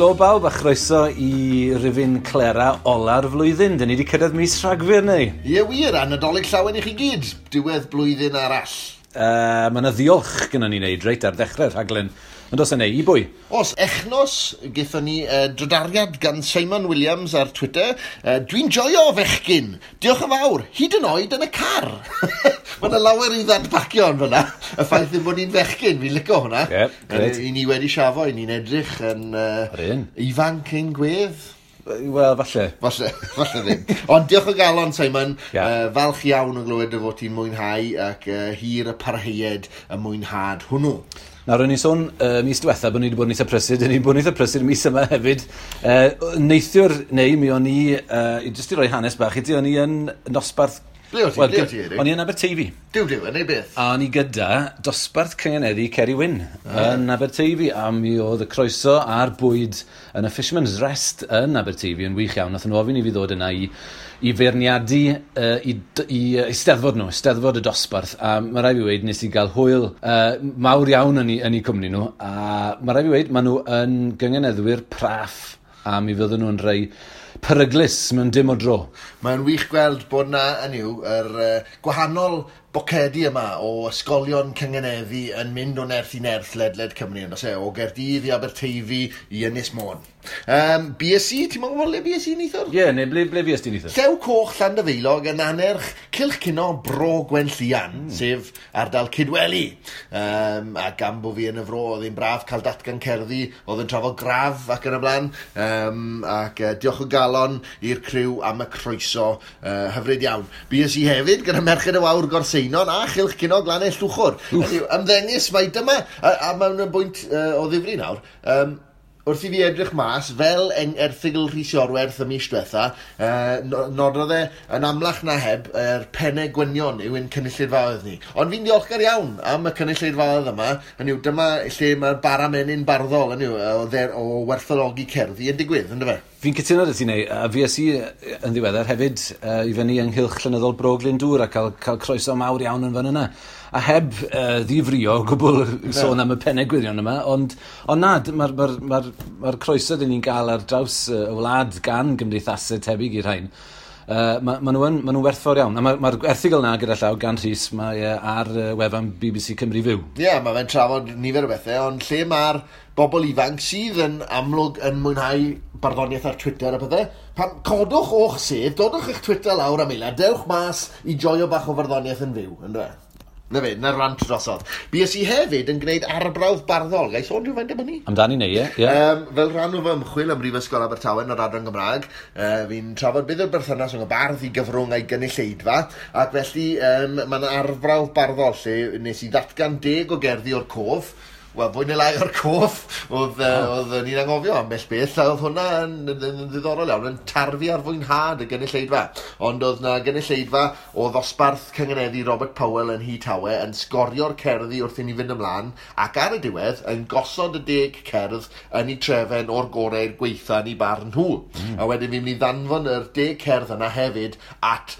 Helo bawb a chroeso i rifyn Clera ola'r flwyddyn. Dyn ni wedi cyrraedd mis Rhagfyr neu? Ie wir, a Nadolig llawen i chi gyd. Diwedd blwyddyn arall. Mae yna ddiolch gyda ni wneud reit ar ddechrau'r rhaglen. Ond os yna, i bwy? Os, echnos, gaethon ni drydariad gan Simon Williams ar Twitter. Dwi'n joio fechgyn. Diolch yn fawr, hyd yn oed yn y car. Mae yna lawer i ddadbacio yn fyna. Y ffaith ddim bod ni'n fechgyn, fi'n licio hwnna. Ie, grêt. I ni wedi siafo, i ni'n edrych yn ifanc ein gwedd. Wel, falle. Falle, falle ddim. Ond diolch o galon, Simon. Yeah. Falch iawn o glywed dy fod ti'n mwynhau ac hir y parheued y mwynhad hwnnw. Nawr, o'n i'n sôn mis diwetha bod ni wedi bod yn eitha prysur, dyn ni wedi bod yn eitha prysur mis yma hefyd. Neithiwr, neu mi o'n i, jyst i roi hanes bach i ti, o'n i yn nosbarth... Ble o ti? Wel, ble o ti, Eric? O'n i yn Aberteifi. Duw, duw, yn ei beth? A o'n i gyda dosbarth cyngeneddu Ceri Wyn yn Aberteifi, a mi oedd y croeso a'r bwyd yn y Fisherman's Rest yn Aberteifi yn wych iawn. Nathon nhw ofyn i fi ddod yna i feirniadu i eisteddfod nhw, eisteddfod y dosbarth, a mae rhaid fi weud nes i gael hwyl mawr iawn yn eu cwmni nhw, a mae rhaid fi weud maen nhw yn gyngeneddwyr praff, a mi fydden nhw'n rhai peryglus mewn dim o dro. Mae'n wych gweld bod na, hynny yw, yr gwahanol bocedi yma o ysgolion cyngeneddu yn mynd o nerth i nerth ledled Cymru, yn does e? O Gaerdydd i Aberteifi i Ynys Môn. BSC, ti'n meddwl le BSC neithiwr? Ie, neu ble fues ti neithiwr? Llew Coch Llandyfeilog yn annerch Cylch Cino Bro Gwenllian, sef ardal Cydweli. A gan bo fi yn y fro, oedd hi'n braf cael datgan cerddi, oedd yn trafod graf ac yn y blaen. Ac diolch o galon i'r criw am y croeso, hyfryd iawn. BSC hefyd gyda Merched y Wawr Gorseinon a Chylch Cino Glannau Llwchwr. Hynny yw, ymddengys mai dyma, a mewn y bwynt o ddifri nawr, wrth i fi edrych mas, fel erthygl Rhys Iorwerth y mis diwetha, nododd e yn amlach na heb yr pennau gwynion yw ein cynulleidfaoedd ni. Ond fi'n ddiolchgar iawn am y cynulleidfaoedd yma. Hynny yw, dyma lle mae'r bara menyn barddol, hynny yw, o werthfawrogi cerddi yn digwydd, yndyfe? Fi'n cytuno 'da ti, Neu, a fues i yn ddiweddar hefyd i fyny ynghylch llenyddol Bro Glyndŵr a cael croeso mawr iawn yn fan yna. A heb ddifrio o gwbl sôn am y pennau gwirion yma, ond na, mae'r croeso dyn ni'n gael ar draws y wlad gan gymdeithasau tebyg i'r rhain. Ma nhw'n werthfawr iawn. A mae'r erthygl yna gyda llaw gan Rhys, mae ar wefan BBC Cymru Fyw. Ie, mae fe'n trafod nifer o bethau, ond lle mae'r bobl ifanc sydd yn amlwg yn mwynhau barddoniaeth ar Twitter a pethau, pan codwch o'ch sedd, dodwch eich Twitter lawr am eiliad, dewch mas i joio bach o farddoniaeth yn fyw, yndyfe? Na fe, na'r rant drosodd. Bues i hefyd yn gwneud arbrawf barddol. Ga i sôn rhywfaint am hynny? Amdani neu, ie. ie. Fel rhan o fy ymchwil ym Mhrifysgol Abertawe yn yr adran Gymraeg, fi'n trafod beth yw'r berthynas rhwng y bardd i gyfrwng a'i gynulleidfa, ac felly mae yna arbrawf barddol lle nes i ddatgan 10 o gerddi o'r cof. Wel, fwy neu lai o'r cof, oedd ni'n anghofio ambell beth, a oedd hwnna yn ddiddorol iawn, yn tarfu ar fwynhad y gynulleidfa. Ond oedd na gynulleidfa o ddosbarth cyngeneddu Robert Powell yn Nhŷ Tawe yn sgorio'r cerddi wrth i ni fynd ymlaen, ac ar y diwedd yn gosod y 10 cerdd yn eu trefen o'r gorau i'r gweitha yn eu barn nhw. A wedyn fi'n mynd i ddanfon yr 10 cerdd yna hefyd at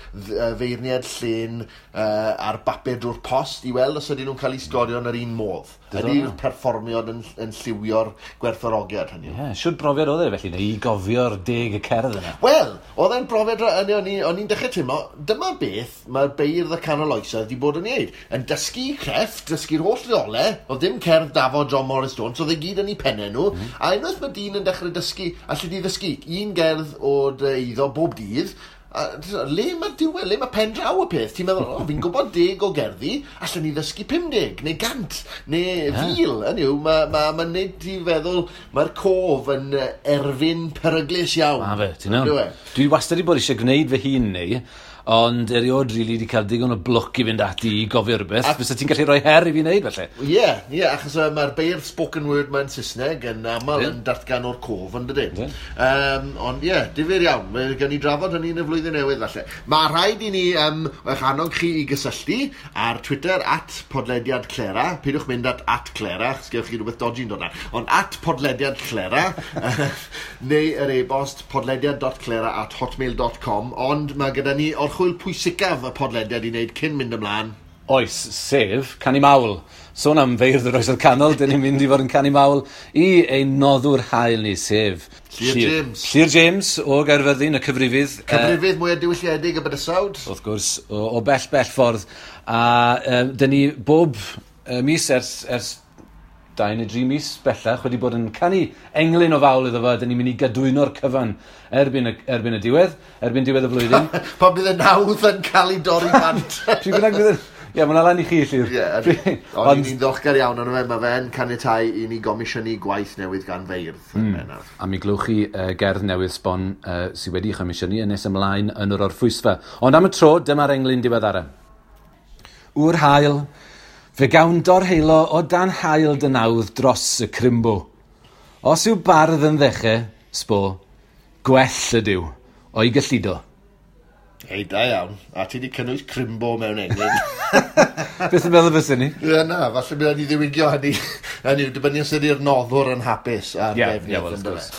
feirniad llên ar bapur drwy'r post i weld os ydyn nhw'n cael eu sgorio yn yr un modd. Ydy'r perfformiad yn lliwio'r gwerthfawrogiad hynny? Ie, siwr brofiad oedd e felly, neu i gofio'r 10 y cerdd yna? Wel, oedd e'n brofiad, o'n i'n dechrau teimlo, dyma beth mae'r beirdd y canol oesoedd wedi bod yn ei wneud. Yn dysgu crefft, dysgu'r holl reolau, oedd dim cerdd Dafod John Morris Jones, oedd e gyd yn ei pennau nhw, a unwaith mae dyn yn dechrau dysgu, allu di ddysgu un gerdd o'r eiddo bob dydd, a le mae'r diwedd, le mae pen draw y peth? Ti'n meddwl, o, fi'n gwybod 10 o gerddi, allan ni ddysgu 50, neu 100, neu 1000. Hynny yw, mae'n neud ti feddwl, mae'r cof yn erfyn peryglus iawn. Ma fe, ti'n iawn. Dwi wastad wedi bod eisiau gwneud fy hun neu, ond erioed rili wedi cael digon o blwc i fynd ati i gofio rhywbeth. Fysa ti'n gallu rhoi her i fi wneud, felly? Ie, achos mae'r beirdd spoken word mewn Saesneg yn aml yn datgan o'r cof, yn dydyn? Ond ie, difyr iawn. Mae gen i drafod hynny yn y flwyddyn newydd, falle. Mae rhaid i ni eich annog chi i gysylltu ar Twitter @podlediadclera. Peidiwch mynd at @Clera, achos gewch chi rhywbeth dodgy'n dod ar. Ond @podlediadclera, neu yr e-bost podlediad.clera@hotmail.com. Ond mae gyda ni orchwyl pwysicaf y podlediad i wneud cyn mynd ymlaen. Oes, sef canu mawl. Sôn am feirdd yr oesoedd canol, dyn ni'n mynd i fod yn canu mawl i ein noddwr hael ni, sef Llyr James. Llyr James o Gaerfyrddin, y cyfrifydd. Cyfrifydd mwyaf diwylliedig y bydysawd. Wrth gwrs, o bell, bell ffordd. A dyn ni bob mis ers 2 neu 3 mis bellach wedi bod yn canu englyn o fawl iddo fo, a dyn ni'n mynd i gadwyno'r cyfan erbyn y diwedd, erbyn diwedd y flwyddyn. Pan bydd y nawdd yn cael ei dorri bant. Pryd bynnag bydd yn... Ie, mae'n lan i chi, Llyr. Ie, ond ni'n ddiolchgar iawn arno fe, mae fe'n caniatáu i ni gomisiynu gwaith newydd gan feirdd. A mi glywch chi gerdd newydd sbon sydd wedi chomisiynu yn nes ymlaen yn yr orffwysfa. Ond am y tro, dyma'r englyn diweddara. Wr hael, fe gawn dorheilo o dan hael dy nawdd dros y crimbo. Os yw bardd yn ddechrau, sbo, gwell ydyw, o'i gyllido. Hei, da iawn. A ti wedi cynnwys crimbo mewn englyn. Beth yn meddwl fysa ni? Ie, na, falle bydd ni ddiwygio hynny. Hynny yw, dibynnu os ydy'r noddwr yn hapus a'r defnydd. Ie, wel, wrth gwrs.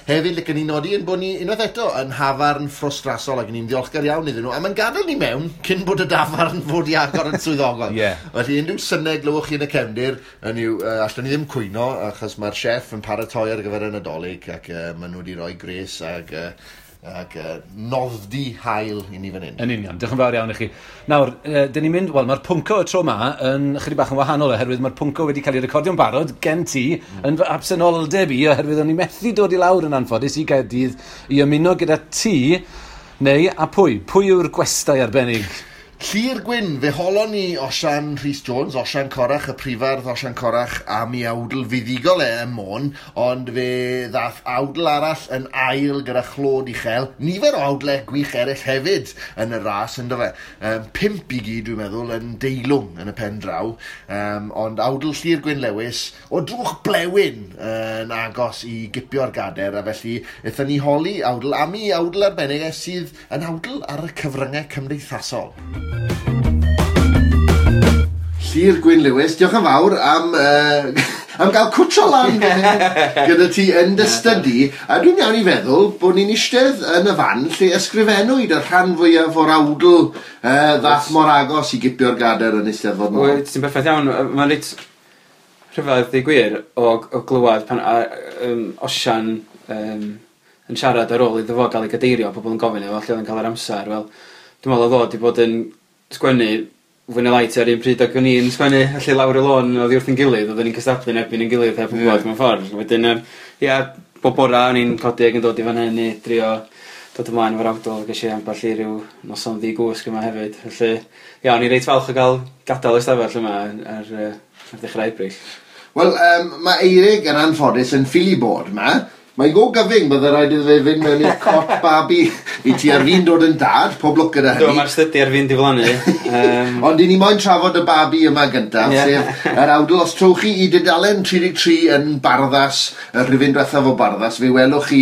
Hefyd, licen ni nodi yn bod ni unwaith eto yn hafarn ffrostrasol ac ni'n ddiolchgar iawn iddyn nhw. A mae'n gadael ni mewn cyn bod y dafarn fod i agor yn swyddogol. Ie. Felly, unrhyw synau glywch chi yn y cefndir, hynny yw, allwn ni ddim cwyno, achos mae'r chef yn paratoi ar gyfer y Nadolig ac maen nhw wedi rhoi gres ac nodddi hael i ni fan hyn. Yn union, diolch yn fawr iawn i chi. Nawr, dyn ni'n mynd, wel, mae'r pwnco y tro ma yn chydig bach yn wahanol oherwydd mae'r pwnco wedi cael ei recordio'n barod gen ti yn fy absenoldeb i oherwydd o'n i methu dod i lawr yn anffodus i Gaerdydd i ymuno gyda ti neu a pwy? Pwy yw'r gwestai arbennig? Llyr Gwyn, fe holon ni Osian Rhys Jones, Osian Corach, y prifardd Osian Corach am ei awdl fuddugol e ym Môn, ond fe ddath awdl arall yn ail gyda chlod uchel, nifer o awdlau gwych eraill hefyd yn y ras, ynddo fe. 5 i gyd, dwi'n meddwl, yn deilwng yn y pen draw, ond awdl Llyr Gwyn Lewis o drwch blewyn yn agos i gipio'r gader, a felly aethon ni holi awdl am ei awdl arbennig e sydd yn awdl ar y cyfryngau cymdeithasol. Llyr Gwyn Lewis, diolch yn fawr am gael cwtio lan gyda ti yn dy stydi, a dwi'n iawn i feddwl bod ni'n eistedd yn y fan lle ysgrifennwyd y rhan fwyaf o'r awdl ddath mor agos i gipio'r gader yn Eisteddfod Môn. Wyt, ti'n berffaith iawn. Mae'n reit rhyfedd i gwir o glywed pan Osian yn siarad ar ôl iddo fo gael ei gadeirio, pobl yn gofyn iddo fo lle oedd yn cael yr amser. Wel, dwi'n meddwl oedd o wedi bod yn sgwennu fwy neu lai tua'r un pryd ac o'n i'n sgwennu, felly lawr y lôn oddi wrth ein gilydd, oedden ni'n cystadlu yn erbyn ein gilydd heb wybod mewn ffordd. Wedyn, ia, bob bora o'n i'n codi ac yn dod i fan hyn i drio dod ymlaen efo'r awdl, ges i ambell i ryw noson ddi-gwsg yma hefyd. Felly, ia, o'n i reit falch o gael gadael y stafell yma ar ddechrau Ebrill. Wel, mae Eirig yn anffodus yn ffili bod yma. Mae'n go gyfyng, bydde rhaid iddo fe fynd mewn i'r cot babi i ti ar fin dod yn dad, pob lwc gyda hynny. Do, mae'r stydi ar fin diflannu. Ond i ni moyn trafod y babi yma gyntaf, sef yr awdl. Os trowch chi i dudalen 33 yn Barddas, y rhifyn diwethaf o Barddas, fe welwch chi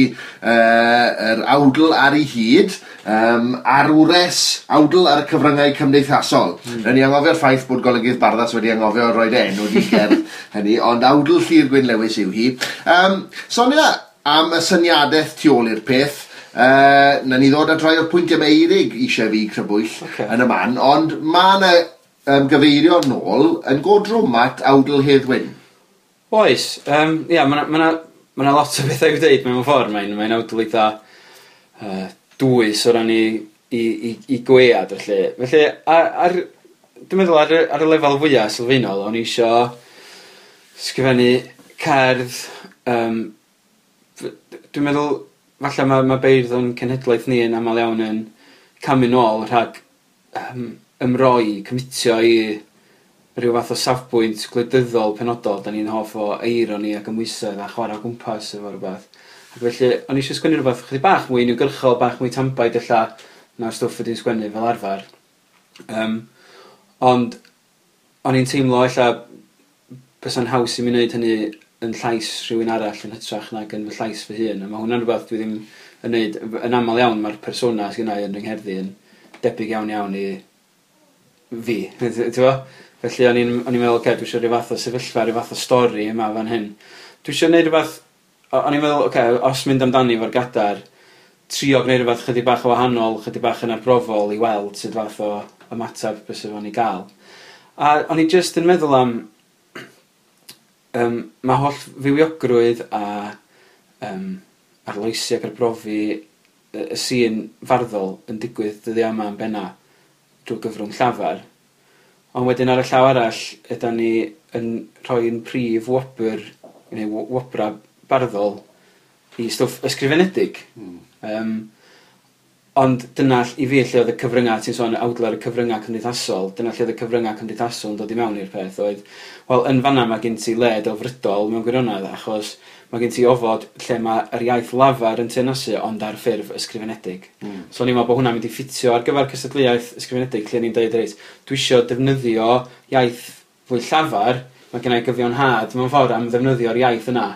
yr awdl ar ei hyd, arwres awdl ar y cyfryngau cymdeithasol. Rydyn ni anghofio'r ffaith bod golygydd Barddas wedi anghofio roed enw di gerdd hynny, ond awdl Llyr Gwyn Lewis yw hi. Sonia, am y syniadaeth tu ôl i'r peth, na ni ddod at rai o'r pwyntiau mae Eirig eisiau fi crybwyll yn y man, ond mae yna gyfeirio nôl yn go drwm at awdl Hedd Wyn. Oes, ia, mae yna lot o bethau i'w dweud mewn ffordd, mae'n awdl eitha dwys o ran i gwead, felly. Felly, dwi'n meddwl ar y lefel fwyaf sylfaenol, o'n i isio sgrifennu cerdd. Dwi'n meddwl, falle mae beirdd o'n cenhedlaeth ni yn aml iawn yn camu nôl rhag ymroi, cymitio i rhyw fath o safbwynt gwleidyddol penodol. Da ni'n hoff o eironi ac ymwysedd a chwarae o gwmpas efo rhywbeth. Ac felly, o'n i eisiau sgwennu rhywbeth chydig bach mwy uniongyrchol, bach mwy tanbaid ella na'r stwff ydy'n sgwennu fel arfer. Ond o'n i'n teimlo ella bysa'n haws i mi wneud hynny yn llais rhywun arall yn hytrach nag yn fy llais fy hun. A mae hwnna'n rhywbeth dwi ddim yn neud. Yn aml iawn mae'r persona sydd gynna i yn fy ngherddi yn debyg iawn iawn i fi. Ti'n Felly o'n i'n meddwl, oce, dwi eisiau rhyw fath o sefyllfa, rhyw fath o stori yma fan hyn. Dwi eisiau gwneud rhywbeth, o'n i'n meddwl, oce, os mynd amdani efo'r gadar, trio gwneud rhywbeth chydig bach o wahanol, chydig bach yn arbrofol i weld sut fath o ymateb bysa fo'n ei gael. A o'n i jyst yn meddwl am mae holl fywiogrwydd a arloesi ac arbrofi y sîn farddol yn digwydd dyddiau yma yn benna drwy gyfrwng llafar. Ond wedyn ar y llaw arall, ydan ni yn rhoi'n prif wobr, neu wobra barddol i stwff ysgrifenedig. Ond dyna i fi lle oedd y cyfryngau, ti'n sôn awdl ar y cyfryngau cymdeithasol, dyna lle oedd y cyfryngau cymdeithasol yn dod i mewn i'r peth oedd, wel, yn fanna mae gen ti le delfrydol mewn gwirionedd, achos mae gen ti ofod lle mae yr iaith lafar yn teyrnasu ond ar ffurf ysgrifenedig. So o'n i'n meddwl bod hwnna'n mynd i ffitio ar gyfer cystadleuaeth ysgrifenedig lle ni'n dweud, reit, dwi isio defnyddio iaith fwy llafar, mae gen i gyfiawnhad mewn ffordd am ddefnyddio'r iaith yna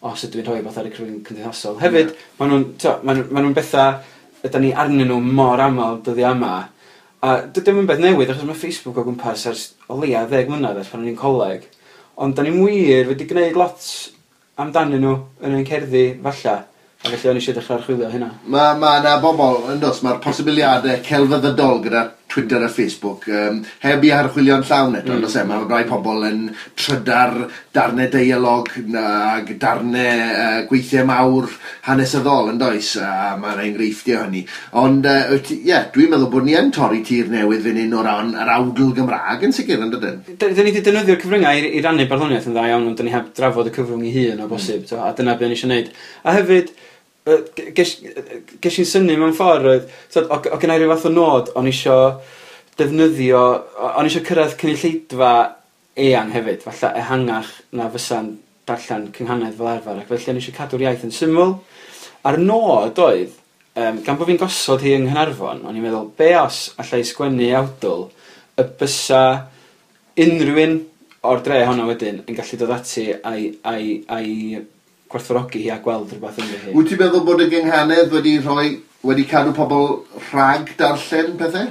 os ydw i'n rhoi rhywbeth ar y cyfrwng cymdeithasol. Hefyd, maen nhw'n bethau ydan ni arnyn nhw mor aml dyddiau yma. A dydy o'm yn beth newydd, achos mae Facebook o gwmpas ers o leia 10 mlynedd ers pan o'n i'n coleg. Ond da ni'n wir wedi gwneud lot amdanyn nhw yn ein cerddi, falla. A felly o'n i eisiau dechrau archwilio hynna. Mae yna bobl, yn does, mae'r posibiliadau celfyddydol gyda Twitter a Facebook heb i archwilio'n llawn eto, mm. Mae rai pobl yn trydar darnau deialog ag darnau gweithiau mawr hanesyddol, yn does, a mae yna enghreifftiau hynny. Ond, ie, dwi'n meddwl bod ni yn torri tir newydd fan hyn o ran yr awdl Gymraeg yn sicr, yn dydyn? Dyn ni wedi defnyddio'r cyfryngau i rannu barddoniaeth yn dda iawn, ond dyn ni heb drafod y cyfrwng ei hun o bosib, a dyna be o'n i eisiau gwneud. A hefyd, ges i'n synnu mewn ffordd, oedd, o gynna i ryw fath o nod, o'n isio defnyddio, o'n isio cyrraedd cynulleidfa eang hefyd, falle ehangach na fysa'n darllen cynghanedd fel arfer, ac felly o'n isio cadw'r iaith yn syml. A'r nod oedd, gan bod fi'n gosod hi yng Nghaernarfon, o'n i'n meddwl, be os allai sgwennu awdl y bysa unrhyw un o'r dre honno wedyn yn gallu dod ati a'i gwerthfawrogi hi a gweld rhywbeth ynddi hi. Wyt ti'n meddwl bod y gynghanedd wedi cadw pobl rhag darllen pethau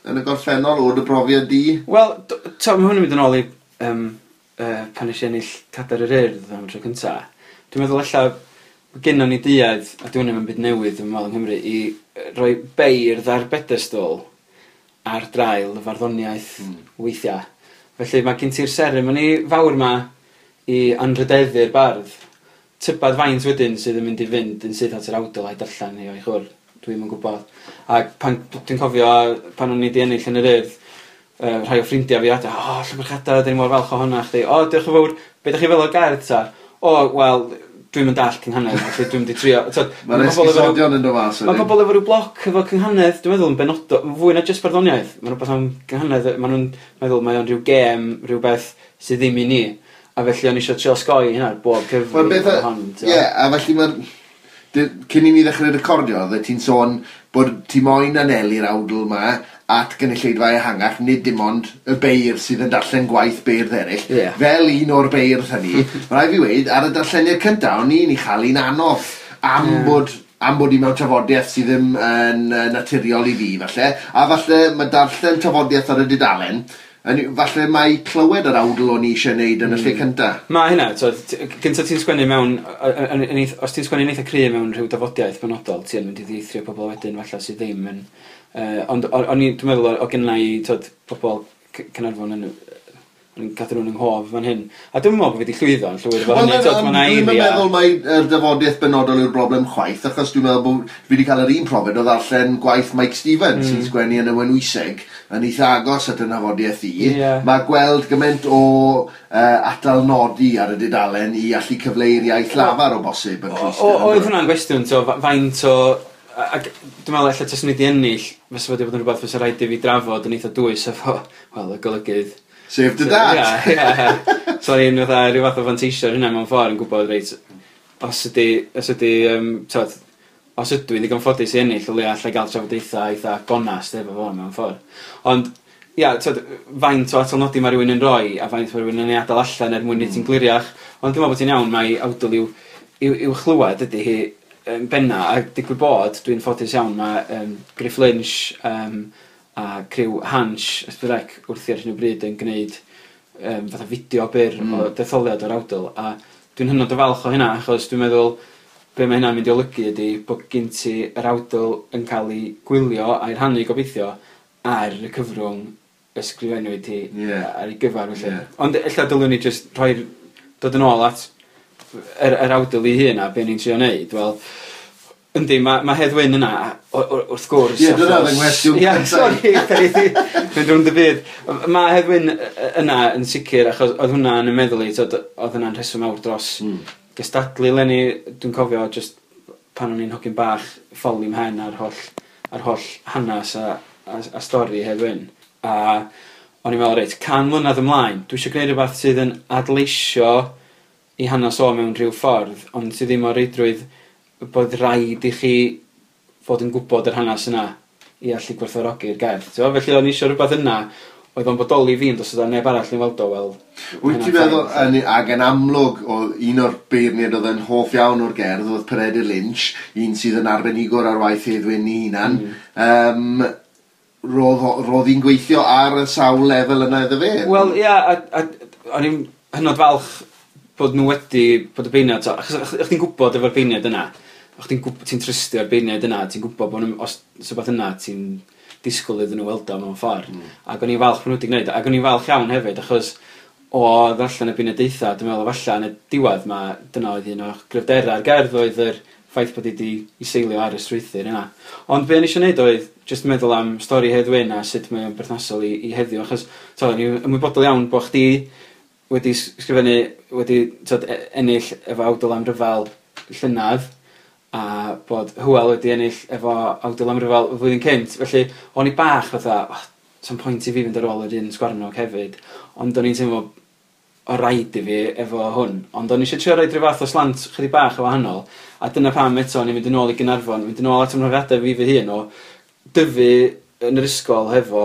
yn y gorffennol o dy brofiad di? Wel, mae hwn yn mynd yn ôl i pan nes i ennill Cadair yr Urdd am y tro cynta. Dwi'n meddwl ella gynnon ni duedd, a dwi hwn yn byd newydd yn meddwl yng Nghymru, i roi beirdd ar bedestol ar draul y farddoniaeth weithiau. Felly mae gen ti'r seremoni fawr ma i anrhydeddu'r bardd. Tybad faint wedyn sydd yn mynd i fynd yn syth at yr awdl a'i darllen hi o'i chwr. Dwi'm yn gwybod. Ac pan dwi'n cofio pan o'n i 'di ennill yn yr Urdd, rhai o ffrindiau fi adra, o, llongyfarchiadau, 'dan ni mor falch ohono chdi. O, diolch yn fawr. Be 'dach chi fel o'r gerdd ta? O, wel, dwi'm yn dallt cynghanedd, felly dwi'm 'di trio. Mae'r esgusodion yn dod mas wedyn. Mae pobl efo rhyw bloc efo cynghanedd, dwi'n meddwl yn benodol, fwy na jyst barddoniaeth. Mae'n rhywbeth am cynghanedd, maen nhw'n meddwl mae o'n rhyw gêm, rhywbeth sydd ddim i ni. A felly o'n i eisiau trio osgoi hynna bob cyfri. Ie, a felly mae'r... Cyn i ni ddechrau recordio, oeddet ti'n sôn bod ti moyn anelu'r awdl yma at gynulleidfa ehangach, nid dim ond y beirdd sydd yn darllen gwaith beirdd eraill. Yeah. Fel un o'r beirdd hynny, mae rhaid fi weud, ar y darlleniad cyntaf, o'n i'n ei chael hi'n anodd am bod i mewn tafodiaeth sydd ddim yn naturiol i fi, falle. A falle mae darllen tafodiaeth ar y dudalen, falle mae clywed yr awdl o'n i eisiau gwneud yn y lle cyntaf. Mae hynna, gyntaf ti'n sgwennu mewn, os ti'n sgwennu'n eitha cry mewn rhyw dafodiaeth benodol, ti'n mynd i ddieithrio pobl wedyn falle sydd ddim yn... Ond o'n i, dwi'n meddwl, o gynna i pobl Caernarfon yn cadw nhw'n yng nghof fan hyn. A dwi'n meddwl bod fi wedi llwyddo yn llwyr efo hynny. Dwi'n meddwl mai yr dafodiaeth benodol yw'r broblem chwaith, achos dwi'n meddwl bod fi wedi cael yr un profiad o ddarllen gwaith Mike Stevens sy'n sgwennu yn y Wenwyseg yn eitha agos at y nafodiaeth i. Yeah. Mae gweld gymaint o atalnodi ar y dudalen i allu cyfleu'r iaith lafar o bosib yn Crist. Oedd hwnna'n gwestiwn, faint o... Ac dwi'n meddwl ella taswn i wedi ennill, fysa wedi bod yn rhywbeth fysa rhaid i fi drafod yn eitha dwys efo, wel, y golygydd. Sef dy dad! Ie, ie. So o'n i'n fatha rhyw fath o fanteisio ar hynna mewn ffordd yn gwybod, reit, os ydw i'n ddigon ffodus i ennill, o leia allai gael trafodaethau eitha gonast efo fo mewn ffordd. Ond, ia, faint o atalnodi mae rhywun yn rhoi a faint mae rhywun yn ei adael allan er mwyn i ti'n gliriach. Ond dwi'n meddwl bod ti'n iawn, mae awdl i'w chlywed ydy hi yn benna, a digwydd bod, dwi'n ffodus iawn, mae Griff Lynch a criw Hansh S4C wrthi ar hyn o bryd yn gwneud fatha fideo byr o detholiad o'r awdl, a dwi'n hynod o falch o hynna, achos dwi'n meddwl be mae hynna'n mynd i olygu ydy bod gen ti yr awdl yn cael ei gwylio a'i rhannu gobeithio ar y cyfrwng ysgrifennwyd hi ar ei gyfar felly. Ond ella dylwn ni jyst rhoi'r dod yn ôl at yr awdl ei hun a be ni'n trio neud, wel, yndi, mae Hedd Wyn yna, wrth gwrs. Ie, dyna oedd 'y nghwestiwn Ie, sori, mynd rownd y byd. Mae Hedd Wyn yna yn sicr, achos oedd hwnna yn y meddwl i, t'od, oedd hwnna'n rheswm mawr dros gystadlu leni. Dwi'n cofio just pan o'n i'n hogyn bach, ffoli mhen ar holl hanes a stori Hedd Wyn. A o'n i'n meddwl, reit, 100 mlynedd ymlaen, dwi eisiau gwneud rhywbeth sydd yn adleisio i hanes o mewn rhyw ffordd, ond sydd ddim o reidrwydd bod rhaid i chi fod yn gwybod yr hanes yna i allu gwerthfawrogi'r gerdd. T'mo? Felly o'n i eisiau rhywbeth yna oedd o'n bodoli fi, ond os oedd neb arall yn weld o, wel, Wyt ti'n meddwl, ac yn amlwg, oedd un o'r beirniaid oedd yn hoff iawn o'r gerdd, oedd Peredur Lynch, un sydd yn arbenigwr ar waith Hedd Wyn ei hunan. Roedd hi'n gweithio ar y sawl lefel yna iddo fe? Wel, ia, a o'n i'n hynod falch bod nhw wedi, bod y beirniad, so, achos chdi'n gwybod efo'r beirniad yna, chdi'n gwybod, ti'n trystio'r beirniad yna, ti'n gwybod bod nhw, os rhywbeth yna, ti'n disgwyl iddyn nhw weld o mewn ffordd. Ac o'n i'n falch bod nhw wedi gwneud, ac o'n i'n falch iawn hefyd, achos o ddarllen y beirniadaethau, dwi'n meddwl falle yn y diwedd ma, dyna oedd un o'r gryfderau'r gerdd oedd yr ffaith bod hi wedi i seilio ar y strwythur yna. Ond be o'n i eisiau gwneud oedd jyst meddwl am stori Hedd Wyn a sut mae o'n berthnasol i heddiw, achos t'o, o'n i'n ymwybodol iawn bod chdi wedi sgrifennu, wedi t'od, ennill efo awdl am ryfel llynedd, a bod Hywel wedi ennill efo awdl am ryfel y flwyddyn cynt. Felly, o'n i bach fatha, oh, sa'm pwynt i fi fynd ar ôl yr un sgwarnog hefyd. Ond o'n i'n teimlo o raid i fi efo hwn. Ond o'n i eisiau trio roid rhyw fath o slant chydig bach o wahanol. A dyna pam eto o'n i'n mynd yn ôl i Gaernarfon, mynd yn ôl at ymhrofiadau fi fy hun o dyfu yn yr ysgol hefo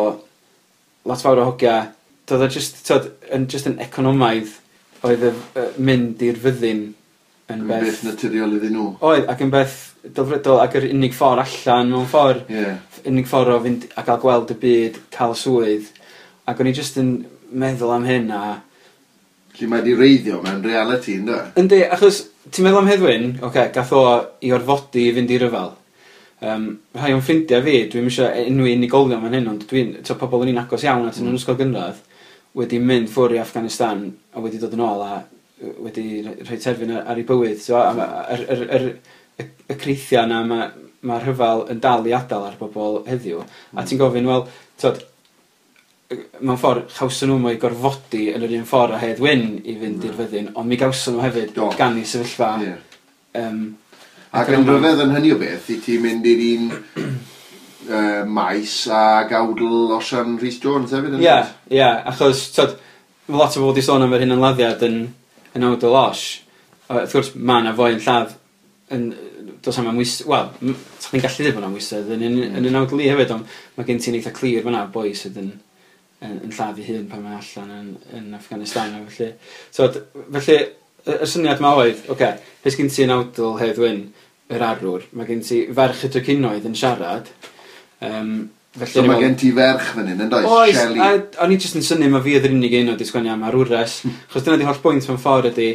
lot fawr o hogia. Doedd o just, t'od, yn, just yn economaidd oedd y mynd i'r fyddin yn yn beth beth naturiol iddyn nhw. Oedd, ac yn beth delfrydol ac yr unig ffordd allan mewn ffordd. Unig ffordd o fynd a gael gweld y byd, cael swydd. Ac o'n i just yn meddwl am hyn a Felly mae di wreiddio mewn reality, ynddo? Yndi, achos ti'n meddwl am Hedd Wyn, oce, okay, gath o i orfodi i fynd i ryfel. Rhai o'n ffrindiau fi, dwi'm eisiau enwi unigolion fan hyn, ond dwi'n, t'o, pobl o'n i'n agos iawn at yn ysgol gynradd, wedi mynd ffwrdd i Afghanistan a wedi dod yn ôl a wedi rhoi terfyn ar ei bywyd. So, a y creithiau yna ma rhyfel yn dal i adael ar bobl heddiw. A ti'n gofyn, wel, t'od, mewn ffordd, chawson nhw mo'u gorfodi yn yr un ffordd a Hedd Wyn i fynd i'r fyddin, ond mi gawson nhw hefyd gan i sefyllfa. Ac yn ryfedd yn hynny o beth, i ti'n mynd i'r un maes ag awdl Osian Rhys Jones hefyd, yn Ie, ie, achos, t'od, ma' lot o bobl wedi sôn am yr hunanladdiad yn awdl Osh. Wrth gwrs, ma' 'na foi yn lladd yn, does am amwys, wel, sa chdi'n gallu dweud bod 'na amwysedd yn yn awdl i hefyd, ond mae gen ti'n eitha clir fan'na boi sydd yn lladd ei hun pan mae allan yn Afghanistan a felly. So, felly, y syniad ma oedd, oce, okay, beth gen ti yn awdl Hedd Wyn, yr arwr, mae gen ti ferch y drycinoedd yn siarad, felly So o'n i'n mae meddwl- gen ti ferch fan hyn, yn does? Oes, Shelley. a o'n i jyst yn synnu ma fi oedd yr unig un oedd 'di sgwennu am arwres. Achos dyna di holl bwynt mewn ffordd ydi,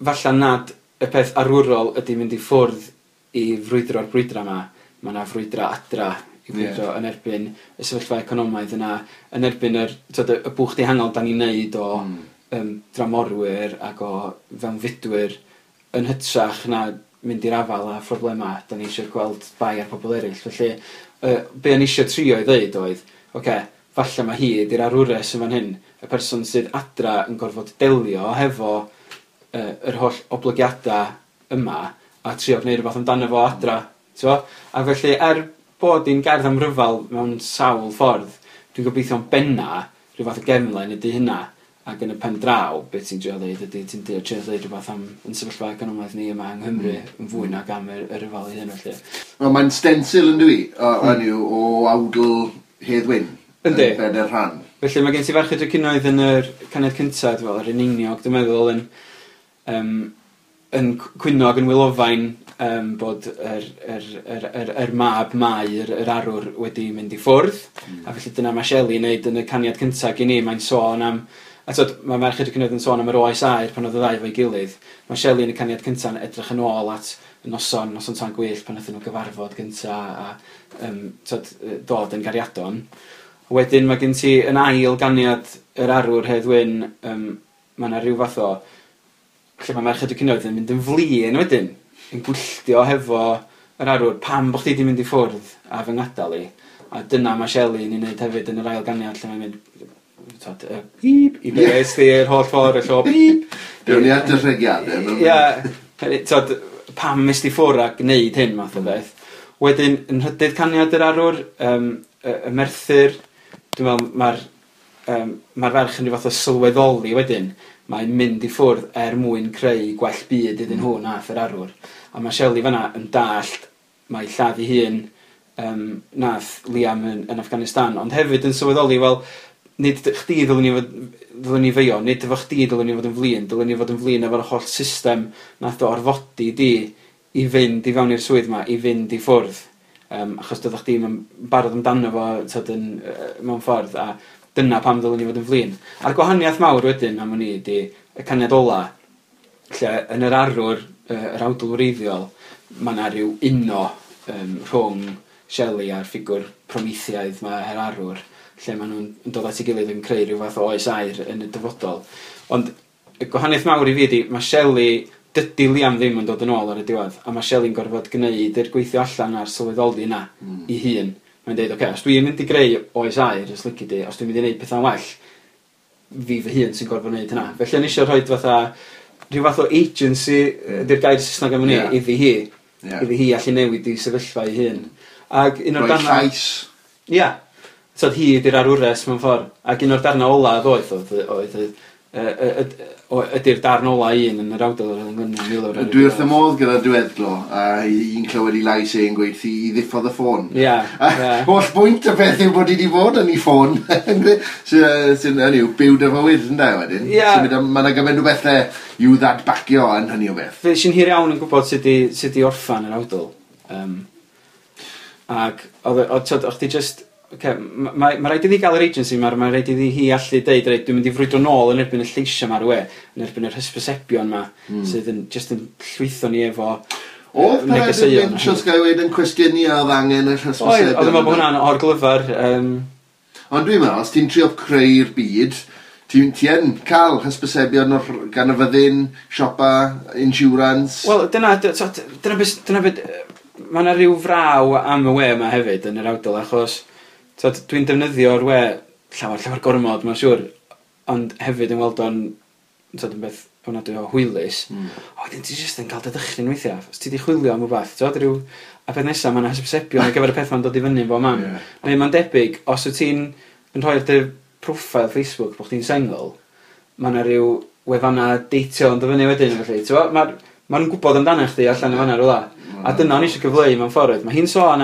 falla nad y peth arwrol ydi mynd i ffwrdd i frwydro'r brwydra yma. Mae yna frwydra adra i frwydro yn erbyn y sefyllfa economaidd yna, yn erbyn yr, t'od, y bwch dihangol da ni'n neud o dramorwyr ac o fewnfudwyr yn hytrach na mynd i'r afael â phroblemau da ni eisiau gweld bai ar pobl eraill. Felly, be o'n i eisiau trio i ddeud oedd, oce, okay, falle mae hi ydi'r arwres yn fan hyn, y person sydd adra yn gorfod delio hefo yr holl oblygiadau yma a trio gwneud rhywbeth amdano fo adra. T'mo? A felly, er bod hi'n gerdd am ryfel mewn sawl ffordd, dwi'n gobeithio'n benna rhyw fath o gefnlen ydy hynna. Ac yn y pen draw, beth ti'n trio ddeud ydy, ti'n trio ddeud rhywbeth am yn sefyllfa economaidd ni yma yng Nghymru yn fwy nag am y ryfel ei hun felly. Wel, mae'n stencil yn dwi, hynny yw, o awdl Hedd Wyn. Yndi. Yn bedair rhan. Felly mae gen ti Ferch y Drycinoedd yn yr caniad cyntaf, fel yr eneiniog, dwi'n meddwl, yn cwyno ac yn wylofain bod yr mab Mai, yr arwr, wedi mynd i ffwrdd. A felly dyna mae Shelley yn neud yn y caniad cyntaf gen i. Mae'n sôn am, a t'od, mae Merch y Drycinoedd yn sôn am yr oes aur pan oedd y ddau efo'i gilydd. Mae Shelley yn y caniad cyntaf yn edrych yn ôl at Noson, noson tân gwyllt pan nathon nhw gyfarfod gynta a t'od, dod yn gariadon. Wedyn mae gen ti yn ail ganiad yr arwr Hedd Wyn, mae yna rhyw fath o lle mae Merched y Cymoedd yn mynd yn flin wedyn, yn gwylltio hefo yr arwr, pam bo' chdi 'di mynd i ffwrdd a fy ngadael i? A dyna mae Shelley yn ei wneud hefyd yn yr ail ganiad lle mae'n mynd, t'od, beep, i be es di yr holl ffordd y llo, beep. Dewn ni at y rhegiadau. Ie, t'od, pam es di ffwrdd a gwneud hyn math o beth. Wedyn, yn nhrydydd caniad yr arwr, y Merthyr, dwi'n meddwl mae'r ferch yn rhyw fath o sylweddoli wedyn, mae'n mynd i ffwrdd er mwyn creu gwell byd iddyn nhw nath yr arwr. A mae Shelley fanna yn dallt mae lladd ei hun nath Liam yn Afghanistan, ond hefyd yn sylweddoli, wel, nid chdi ddylwn ni feio, nid efo chdi ddylwn ni fod yn flin, dylwn ni fod yn flin efo'r holl system nath o orfodi di i fynd i fewn i'r swydd ma, i fynd i ffwrdd. Achos doeddech chdi'm yn barod amdano fo, t'od, yn, mewn ffordd, a dyna pam ddylwn ni fod yn flin. A'r gwahaniaeth mawr wedyn am wn i ydi y caniad ola, lle yn yr arwr, yr awdl wreiddiol, mae yna rhyw uno rhwng Shelley a'r ffigwr Prometheaidd ma, yr arwr, lle maen nhw'n dod at ei gilydd yn creu rhyw fath o oes aur yn y dyfodol. Ond y gwahaniaeth mawr i fi ydi, mae Shelley, dydy Liam ddim yn dod yn ôl ar y diwedd, a mae Shelley'n gorfod gwneud yr gweithio allan a'r sylweddoli yna i hun. Mae'n deud, oce, os dwi'n mynd i greu oes aur, os lici di, os dwi'n mynd i wneud pethau'n well, fi fy hun sy'n gorfod wneud hynna. Felly o'n i eisiau rhoi fatha, rhyw fath o agency, ydy'r gair Saesneg am hynny, iddi hi. Iddi hi allu newid i sefyllfa ei hun. Ac un o'r Rhoi darnau llais. Ia. So hi ydy'r arwres mewn ffordd. Ac un o'r darnau ola ddoeth oedd ydy'r darn ola un yn yr awdl yr Englynion Milwr ar y Dwi wrth diwedd. y modd gyda diweddglo, a i'n clywed i lais e'n gweud i ddiffodd y ffôn. Ie. Holl bwynt y peth yw bod i wedi bod yn ei ffôn. Sy'n hynny yw, byw dy fywyd, ynde, wedyn. Sy'n mynd am- ma' 'na gymaint o bethau i'w ddadbacio yn hynny o beth. Fe sy'n hir iawn yn gwybod sut i orffan yr awdl. Ac oedd, t'od, o'ch ti just... Ocê, ma' raid iddi gael yr agency, ma' raid iddi hi allu deud, reit, dwi'n mynd i frwydro nôl yn erbyn y lleisiau 'ma ar y we, yn erbyn yr hysbysebion 'ma, sydd yn just yn llwytho ni efo Oedd Peredur negeseuon. Lynch, os ga i weud, yn cwestiynu a oedd angen yr hysbysebion? Oedd, oedd yn meddwl bod hwnna'n orglyfar. Ond dwi'n meddwl, os ti'n trio creu'r byd, ti yn cael hysbysebion gan y fyddin, siopa, insurance. Wel, dyna, so, dyna beth, dyna beth, ma' 'na ryw fraw am y we yma hefyd yn yr awdl, achos t'od, dwi'n defnyddio'r we llawer, llawer gormod, mae'n siŵr, ond hefyd yn weld o'n, t'od, yn beth ofnadwy o hwylus. O, wedyn ti jyst yn cael dy ddychryn weithiau. Os ti 'di chwilio am rwbath, t'od, ryw, a peth nesa, ma' 'na hysbysebion ar gyfer y peth ma'n dod i fyny yn bob man. Neu mae'n debyg, os wyt ti'n yn rhoi ar dy profile Facebook bod chdi'n sengl, ma' 'na ryw wefanna deitio yn dod fyny wedyn, felly, t'mo', ma' nhw'n gwybod amdano chdi allan yn fan'na rywle. A dyna o'n i eisiau cyfleu mewn ffordd. Mae hi'n sôn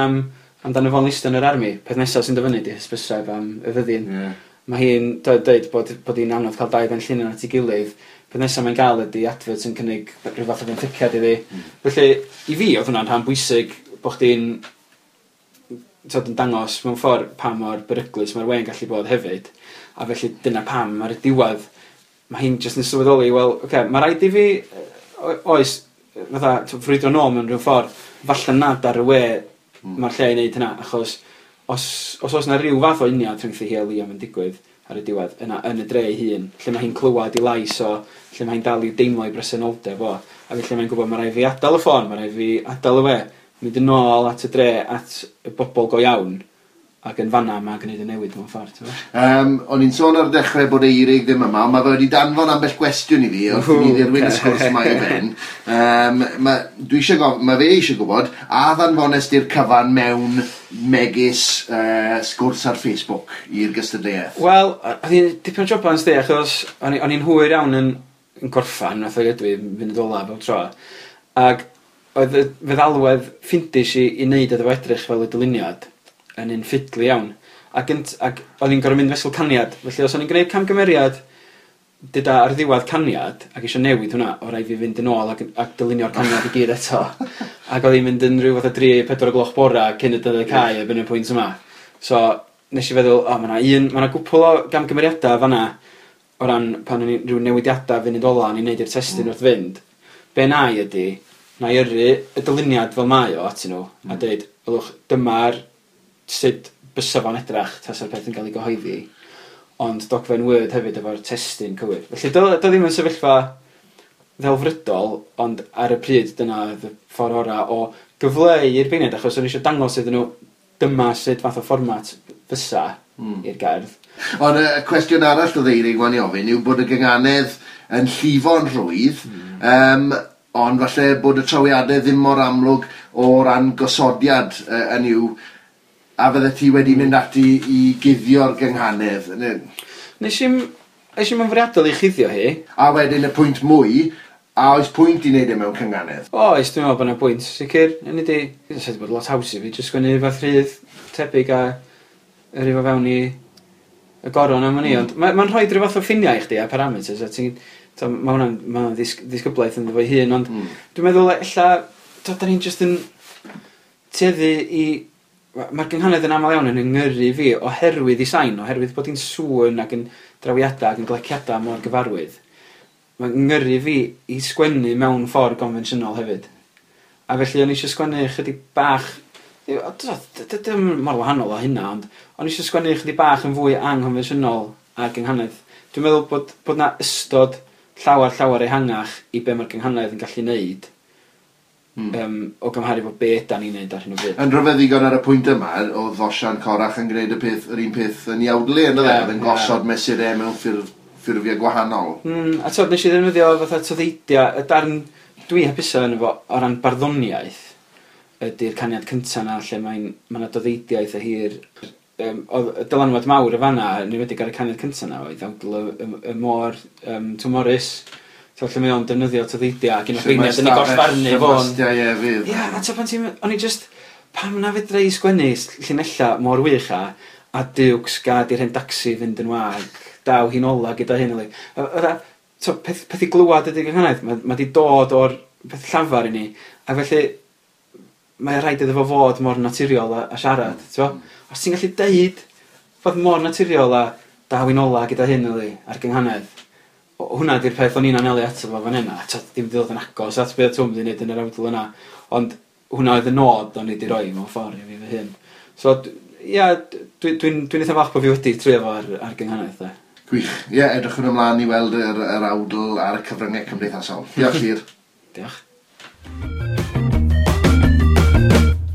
amdano fo'n listio yn yr army. Peth nesaf sy'n dod fyny 'di hysbyseb am y fyddin. Mae hi'n dweud bod hi'n anodd cael dau ben llinyn at ei gilydd. Peth nesaf mae'n gael ydi advert sy'n cynnig rhyw fath o fenthyciad iddi. Felly, i fi, oedd hwnna'n rhan bwysig bod chdi'n, t'od, yn dangos mewn ffordd pa mor beryglus mae'r we'n gallu bod hefyd. A felly dyna pam ar y diwedd mae hi'n jyst yn sylweddoli, wel, oce, mae rhaid i fi, oes, fatha, t'o', frwydro nôl mewn rhyw ffordd, falle nad ar y we mae'r lle i wneud hynna, achos os oes 'na ryw fath o uniad rhyngthi hi a Liam yn digwydd ar y diwedd, yna yn y dre ei hun, lle mae hi'n clywed ei lais o, lle mae hi'n dal i deimlo ei bresenoldeb o, a felly mae'n gwybod mae rhaid fi adael y ffôn, mae rhaid fi adael y we, mynd yn ôl at y dre, at y bobl go iawn, ac yn fanna mae'n gwneud y newid mewn ffordd, ti'n gwbod? O'n i'n sôn ar y dechrau bod Eirig ddim yma, ond mae fe wedi danfon ambell gwestiwn i fi wrth i ni ddirwyn y sgwrs yma i ben. Ma fe eisiau gwybod, a ddanfones di'r cyfan mewn megis sgwrs ar Facebook i'r gystadleuaeth? Wel, oedd hi'n dipyn o joban, sdi, achos o'n i'n hwyr iawn yn gorffan, nath o ydw i fynd ola bob tro. Ac oedd y feddalwedd ffindis i wneud iddo fo edrych fel y dyluniad yn un ffidlu iawn. Ac o'n i'n gorfod mynd fesul caniad. Felly os o'n i'n gwneud camgymeriad dyda ar ddiwedd caniad ac eisiau newid hwnna, o raid fi fynd yn ôl ac dylunio'r caniad i gyd eto. Ac oedd hi'n mynd yn rhyw fath o 3-4 o gloch bora cyn y dyddiad cau erbyn y pwynt yma. So nes i feddwl, o, ma' 'na gwpl o gamgymeriadau fan'na o ran pan o'n i rhyw newidiadau funud ola o'n i'n neud i'r testun wrth fynd. Be na i ydi, Na i yrru y dyluniad fel mae o atyn nhw, a dweud, ylwch, dyma'r sut bysa fo'n edrach tasa'r peth yn cael ei gyhoeddi, ond dogfen Word hefyd efo'r testun cywir. Felly, do, do ddim yn sefyllfa ddelfrydol, ond ar y pryd dyna oedd y ffordd orau o gyfleu i'r beirniaid, achos o'n i eisiau dangos iddyn nhw dyma sut fath o fformat fysa i'r gerdd. Ond y cwestiwn arall oedd Eirig wan i ofyn yw bod y gynganedd yn llifo'n rhwydd, ond falle bod y trawiadau ddim mor amlwg o ran gosodiad yn yw, a fydde ti wedi mynd ati i guddio'r gynghanedd. Nes i'm yn fwriadol i chuddio hi. A wedyn y pwynt mwy, a oes pwynt i wneud e mewn cynghanedd? Oes, dwi'n meddwl bod yna pwynt, sicr. Yn ydi, sa'i wedi bod lot haws i fi, jyst sgwennu rhywbeth rhydd tebyg a yrru fo fewn i y goron am wn i, ond mae'n rhoi rhyw fath o ffiniau i chdi a parameters, a ti'n... Mae hwnna'n ma hwnna ddisgyblaeth ynddo fo'i hun, ond dwi'n meddwl ella, da ni'n jyst yn tueddu i... Mae'r gynghanedd yn aml iawn yn yngyrru fi oherwydd i sain, oherwydd bod hi'n sŵn ac yn drawiadau ac yn gleciadau mor gyfarwydd. Mae'n ngyrru fi i sgwennu mewn ffordd gonfensiynol hefyd. A felly o'n i eisiau sgwennu chydig bach... Dim mor wahanol o hynna, ond o'n i eisiau sgwennu chydig bach yn fwy anghonfensiynol ar gynghanedd. Dwi'n meddwl bod 'na ystod llawer ehangach i be mae'r gynghanedd yn gallu neud o gymharu fo be ydan ni'n neud ar hyn o bryd. Yn rhyfedd ddigon ar y pwynt yma, oedd Osian Corach yn gwneud yr un peth yn iawdlu, yn oedd yn gosod mesurau mewn ffurfiau gwahanol. A t'od, nes i ddefnyddio fatha toddeidiau, y darn dwi hapusa yn efo o ran barddoniaeth ydy'r caniad cynta 'na lle mae 'na doddeidiau eitha hir. Oedd y dylanwad mawr y fanna, yn enwedig ar y caniad cynta 'na, oedd awdl y môr Twm Morys. So, lle mae o'n defnyddio toddeidiau ac un o'r beirniaid yn ei gollfarnu fo'n... Ie, a t'od pan ti'n... O'n i just... Pam na fedra i sgwennu llinella mor wych a diwcs gad i'r hen dacsi fynd yn wag, daw hi'n ola gyda hyn. Peth i glywad ydy'r gynghanedd, mae di dod o'r peth llafar i ni, a felly mae rhaid iddo fo fod mor naturiol a siarad, t'bo? Os ti'n gallu deud fod mor naturiol a daw hi'n ola gyda hyn ar gynghanedd, hwnna di'r peth o'n i'n anelu ato fo fan hyn, a t'od, dim 'di dod yn agos at be' Twm 'di neud yn yr awdl yna, ond hwnna oedd y nod o'n i 'di roi mewn ffordd i fi fy hun. So, ia, dwi'n eitha falch bod fi wedi trio fo ar gynghanedd, de. Gwych. Ie, edrychwn ymlaen i weld yr awdl ar y cyfryngau cymdeithasol. Diolch, Llyr. Diolch.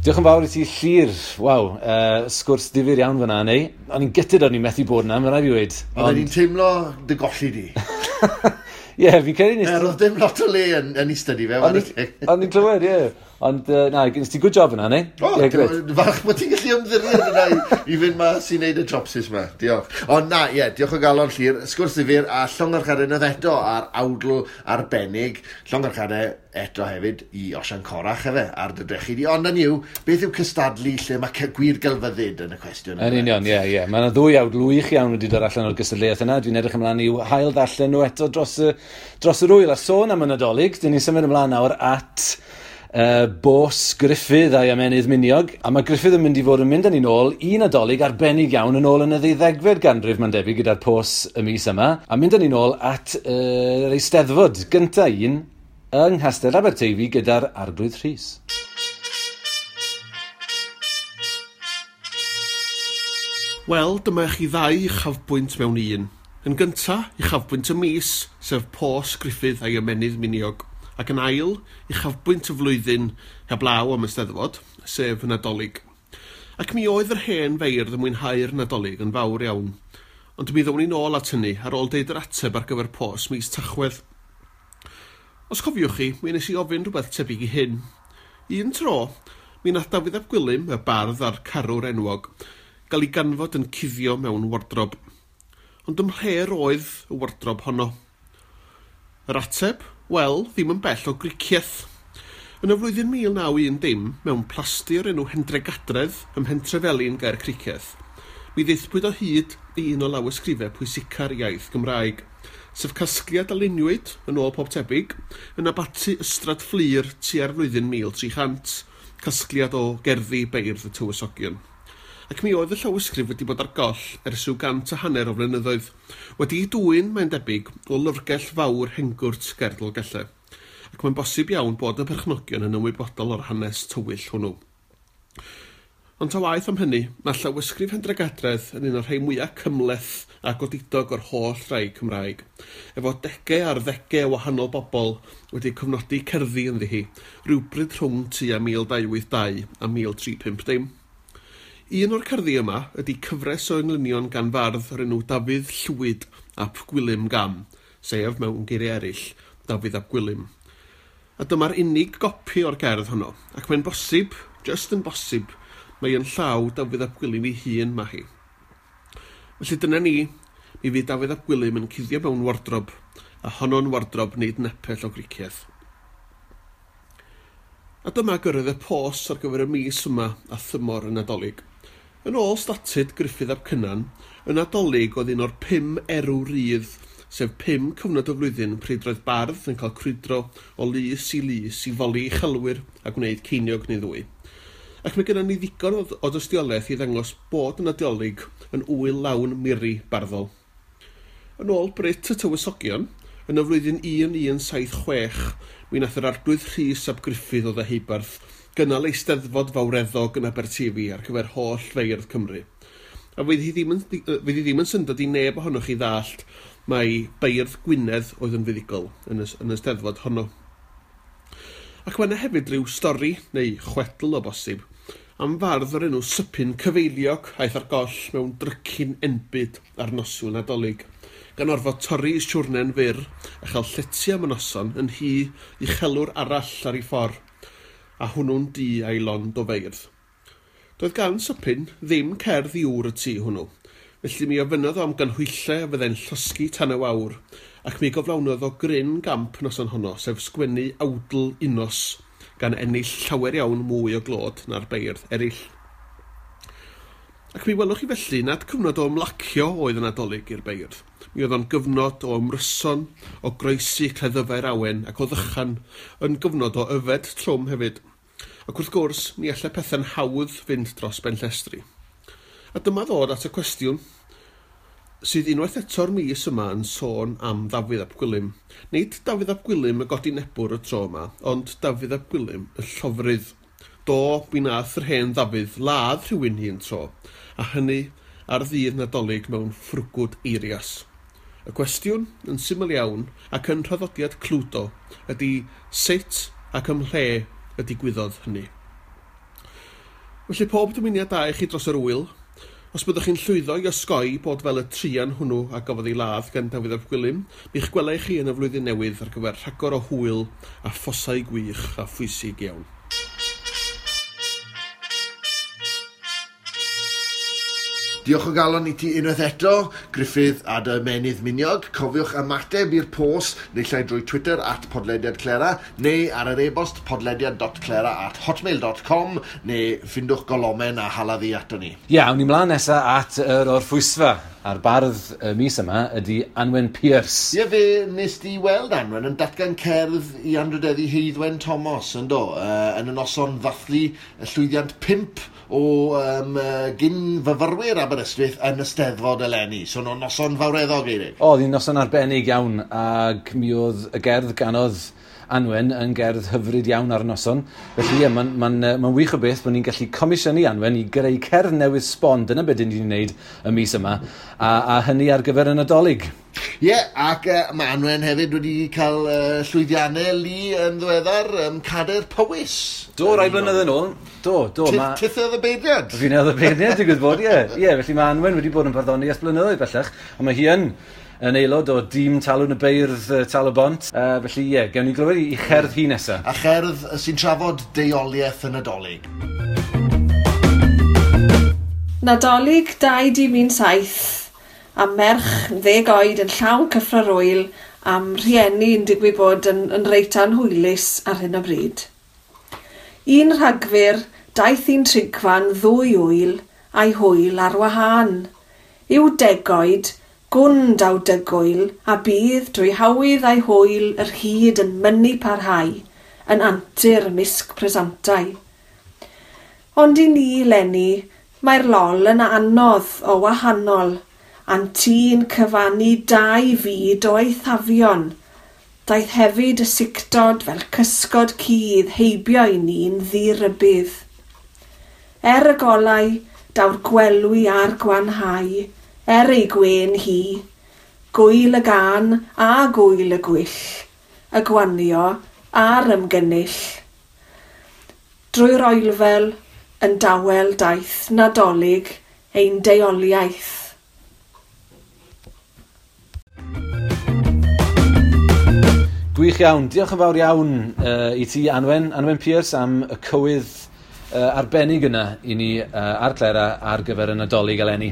Diolch yn fawr i ti, Llyr. Waw, sgwrs difyr iawn fyna, neu? O'n i'n gytid o'n i'n methu bod yna, mae'n rhaid i weud. Ond i'n teimlo dy golli di. Ie, fi'n credu nes... Oedd dim lot o le yn ei stydi fe. O'n i'n clywed, ie. Ond, na, nes ti good job yna, neu? O, falch bod ti'n gallu ymddiried yna i fynd mas i wneud y jobsys yma. Diolch. Ond na, ie, diolch o galon, Llyr. Sgwrs ddifyr a llongyfarchiadau unwaith eto ar awdl arbennig. Llongyfarchiadau eto hefyd i Osian Corach efe, ar dy drechu di. Ond yn yw, beth yw cystadlu lle mae gwir gelfyddyd yn y cwestiwn? Yn union, ie, ie. Mae yna ddwy awdl wych iawn wedi dod allan o'r gystadleuaeth yna. Dwi'n edrych ymlaen i'w hail ddarllen nhw eto dros yr wyl. A sôn am y Nadolig, dyn ni'n symud ymlaen nawr at Bos Gruffydd a'i ymennydd miniog, a mae Gruffydd yn mynd i fod yn mynd â ni nôl i Nadolig arbennig iawn yn ôl yn y ddeuddegfed ganrif, mae'n debyg, gyda'r pos y mis yma, a mynd â ni nôl at yr Eisteddfod gynta un yng Nghastell Aberteifi gyda'r Arglwydd Rhys. Wel, dyma chi ddau uchafbwynt mewn un. Yn gynta, uchafbwynt y mis, sef Pos Gruffydd a'i ymennydd miniog, ac yn ail, uchafbwynt y flwyddyn heblaw am y Steddfod, sef y Nadolig. Ac mi oedd yr hen feirdd yn mwynhau'r Nadolig yn fawr iawn, ond mi ddown ni nôl at hynny ar ôl deud yr ateb ar gyfer pos mis Tachwedd. Os cofiwch chi, mi nes i ofyn rhywbeth tebyg i hyn. Un tro, mi nath Dafydd ap Gwilym, y bardd a'r carwr enwog, gael ei ganfod yn cuddio mewn wardrob. Ond ymhle roedd y wardrob honno? Yr ateb? Wel, ddim yn bell o Gricieth. Yn y flwyddyn 1910, mewn plasty o'r enw Hendregadredd ym Mhentrefelin ger Cricieth, mi ddaethpwyd o hyd i un o lawysgrifau pwysica'r iaith Gymraeg, sef casgliad a luniwyd, yn ôl pob tebyg, yn abaty Ystrad Fflur tua'r flwyddyn 1300, casgliad o gerddi beirdd y tywysogion. Ac mi oedd y llawysgrif wedi bod ar goll ers rhyw 150 o flynyddoedd, wedi'i dwyn, mae'n debyg, o lyfrgell fawr Hengwrt ger Dolgellau. ac mae'n bosib iawn bod y perchnogion yn ymwybodol o'r hanes tywyll hwnnw. Ond ta waeth am hynny, mae llawysgrif Hendregadredd yn un o'r rhai mwyaf cymhleth a godidog o'r holl rai Cymraeg, efo degau ar ddegau o wahanol bobl wedi cofnodi cerddi ynddi hi, rhywbryd rhwng tua 1282 a 1350. Un o'r cerddi yma ydy cyfres o englynion gan fardd o'r enw Dafydd Llwyd ap Gwilym Gam, sef, mewn geiriau eraill, Dafydd ap Gwilym. A dyma'r unig gopi o'r gerdd honno, ac mae'n bosib, jyst yn bosib, mae yn llaw Dafydd ap Gwilym ei hun mae hi. Felly dyna ni, mi fydd Dafydd ap Gwilym yn cuddio mewn wardrob, a honno'n wardrob nid nepell o Gricieth. A dyma gyrraedd y pos ar gyfer y mis yma a thymor y Nadolig. Yn ôl statud Gruffydd ap Cynan, y Nadolig oedd un o'r 5 erw rydd, sef 5 cyfnod y flwyddyn pryd roedd bardd yn cael crwydro o lys i lys i foli uchelwyr a gwneud ceiniog neu ddwy. Ac mae gennym ni ddigon o dystiolaeth i ddangos bod y Nadolig yn ŵyl lawn miri barddol. Yn ôl Brut y Tywysogion, yn y flwyddyn 1176, mi wnaeth yr arglwydd Rhys ap Gruffydd o Ddeheubarth gynnal eisteddfod fawreddog yn Aberteifi ar gyfer holl feirdd Cymru. A fydd hi ddim yn, fydd hi ddim yn syndod i neb ohonoch chi ddallt mai beirdd Gwynedd oedd yn fuddugol yn y, yn y steddfod honno. Ac mae yna hefyd ryw stori, neu chwedl o bosib, am fardd o'r enw Sypyn Cyfeiliog aeth ar goll mewn drycin enbyd ar noswyl Nadolig, gan orfod torri ei siwrne'n fyr a chael llety am y noson yn nhŷ uchelwr arall ar ei ffordd, a hwnnw'n dŷ a'i lond o feirdd. Doedd gan Sypyn ddim cerdd i ŵr y tŷ hwnnw, felly mi ofynnodd o am ganhwyllau a fyddai'n llosgi tan y wawr, ac mi goflawnodd o gryn gamp noson honno, sef sgwennu awdl unnos, gan ennill llawer iawn mwy o glod na'r beirdd eraill. Ac mi welwch chi felly nad cyfnod o ymlacio oedd y Nadolig i'r beirdd. Mi oedd o'n gyfnod o ymryson, o groesi cleddyfau'r awen ac o ddychan, yn gyfnod o yfed trwm hefyd. Ac wrth gwrs, mi allai pethau'n hawdd fynd dros ben llestri. A dyma ddod at y cwestiwn sydd unwaith eto'r mis yma yn sôn am Ddafydd ap Gwilym. Nid Dafydd ap Gwilym y godinebwr y tro yma, ond Dafydd ap Gwilym y llofrudd. Do, mi nath yr hen Ddafydd ladd rhywun un tro, a hynny ar ddydd Nadolig mewn ffrwgwd eirias. Y cwestiwn, yn syml iawn, ac yn nhraddodiad Cludo, ydy sut ac ym mhle y digwyddodd hynny. Felly pob dymuniad da i chi dros yr ŵyl. Os byddwch chi'n llwyddo i osgoi bod fel y truan hwnnw a gafodd ei ladd gan Dafydd ap Gwilym, mi'ch gwela i chi yn y flwyddyn newydd ar gyfer rhagor o hwyl a phosau gwych a phwysig iawn. Diolch o galon i ti unwaith eto, Gruffydd a dy ymennydd miniog. Cofiwch ymateb i'r post naill ai drwy Twitter @podlediadclera neu ar yr e-bost podlediad.clera@hotmail.com neu ffindwch golomen a hala ddi ato ni. Ie, awn ni mlaen nesa at yr orffwysfa. A'r bardd y mis yma ydy Anwen Pierce. Ie, fe nes di weld Anwen yn datgan cerdd i anrhydeddu Heiddwen Thomas, yn do, yn y noson ddathlu y llwyddiant 5 o gyn-fyfyrwyr Aberystwyth yn y Steddfod eleni. So, no, noson fawreddog, Eirig. O, oedd hi'n noson arbennig iawn, ac mi oedd y gerdd ganodd Anwen yn gerdd hyfryd iawn ar y noson. Felly ie, mae'n ma wych o beth bod ni'n gallu comisiynu Anwen i greu cerdd newydd sbon. Dyna beth ni'n wneud y mis yma, a hynny ar gyfer y Nadolig. Ie, yeah, ac mae Anwen hefyd wedi cael llwyddiannau lu yn ddiweddar, Cadair Powys. Do, rai blynedd yn ôl. Do. Tith oedd y beirniad? Fi'n oedd y beirniad, digwydd bod, ie. Ie, felly mae Anwen wedi bod yn barddoni ers blynyddoedd bellach, ond mae hi yn aelod o dîm Talwrn y Beirdd Tal-y-bont. Felly ie, gewn ni glywed i cherdd hi nesaf. A cherdd sy'n trafod deuoliaeth y Nadolig. Nadolig 2017 a merch 10 oed yn llawn cyffro'r ŵyl am rhieni yn digwydd bod yn reit anhwylus ar hyn o bryd. 1 Rhagfyr, daeth un trigfan ddwy ŵyl a'i hwyl ar wahân. Yw degoed, gwn daw dygwyl, a bydd drwy hawydd a'i hwyl yr hyd yn mynnu parhau, yn antur ymysg presantau. Ond i ni, leni, mae'r lol yn anodd o wahanol, a'n tî'n cyfannu 2 fyd o eithafion. Daeth hefyd y sictod fel cysgod cudd heibio i ni'n ddirybudd. Er y golau, daw'r gwelwi a'r gwanhau, er ei gwên hi, gwyl y gân a gwyl y gwyll, y gwanio a'r ymgynnull. Drwy'r oelfel yn dawel daeth Nadolig ein deuoliaeth. Gwych iawn. Diolch yn fawr iawn i ti, Anwen, Anwen Pierce, am y cywydd arbennig yna i ni ar Clera ar gyfer y Nadolig eleni.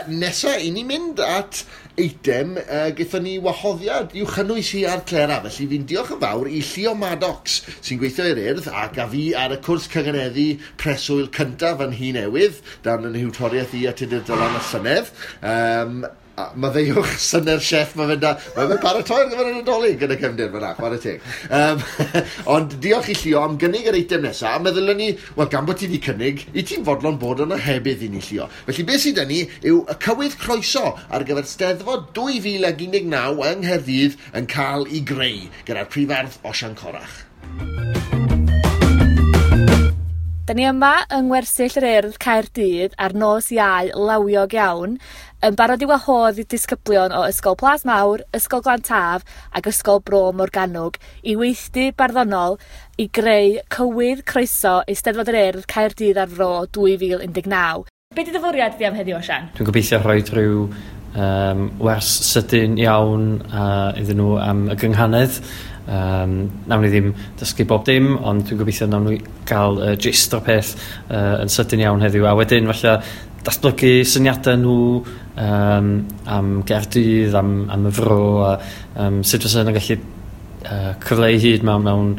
Nesa, i ni mynd at eitem gaethon ni wahoddiad i'w chynnwys hi ar Clera, felly fi'n diolch yn fawr i Llio Maddox sy'n gweithio i'r Urdd ac a fi ar y cwrs cynganeddu preswyl cyntaf yn Nhŷ Newydd, dan yn nhiwtoriaeth i a Tudur Dylan y llynedd. Maddeuwch synnau'r chef, mae fe'n ma fe'n paratoi ar gyfer y Nadolig yn y cefndir fyna, chwarae teg. Ond diolch i Llio am gynnig yr eitem nesaf, a meddylen ni, wel gan bod ti wedi cynnig, i ti'n fodlon bod yn ohebydd i ni Llio. Felly beth sydd 'da ni yw y cywydd croeso ar gyfer Steddfod 2019 yng Nghaerdydd yn cael ei greu gyda'r prifardd Osian Corach. Da ni yma yng Ngwersyll yr Urdd Caerdydd ar nos Iau lawiog iawn, yn barod i wahodd i disgyblion o Ysgol Plas Mawr, Ysgol Glan Taf ac Ysgol Bro Morgannwg i weithdy barddonol i greu cywydd croeso Eisteddfod yr Urdd Caerdydd a'r Fro 2019. Be 'di dy fwriad di am heddiw, Osian? Dwi'n gobeithio rhoi rhyw wers sydyn iawn iddyn nhw am y gynghanedd. Nawn ni ddim dysgu bob dim, ond dwi'n gobeithio nawn ni gael gist o'r peth yn sydyn iawn heddiw. A wedyn falle datblygu syniadau nhw am Gaerdydd, am y fro, a sut fysa nhw'n gallu cyfleu hyd mewn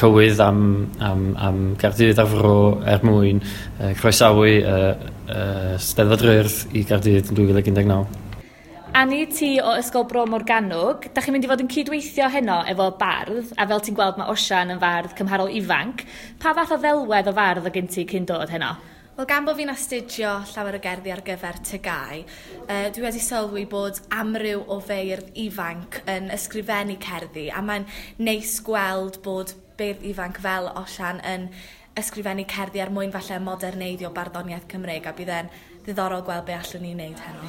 cywydd am Gaerdydd a'r fro er mwyn croesawu Steddfod yr Urdd i Gaerdydd yn 2019. Ani, ti o Ysgol Bro Morgannwg, da chi'n mynd i fod yn cydweithio heno efo bardd, a fel ti'n gweld mae Osian yn fardd cymharol ifanc. Pa fath o ddelwedd o fardd o gen ti cyn dod heno? Wel, gan bod fi'n astudio llawer o gerddi ar gyfer TGAU, dwi wedi sylwi bod amryw o feirdd ifanc yn ysgrifennu cerddi, a mae'n neis gweld bod beirdd ifanc fel Osian yn ysgrifennu cerddi er mwyn falle moderneiddio barddoniaeth Cymreig, a bydd e'n ddiddorol gweld be allwn ni wneud heno.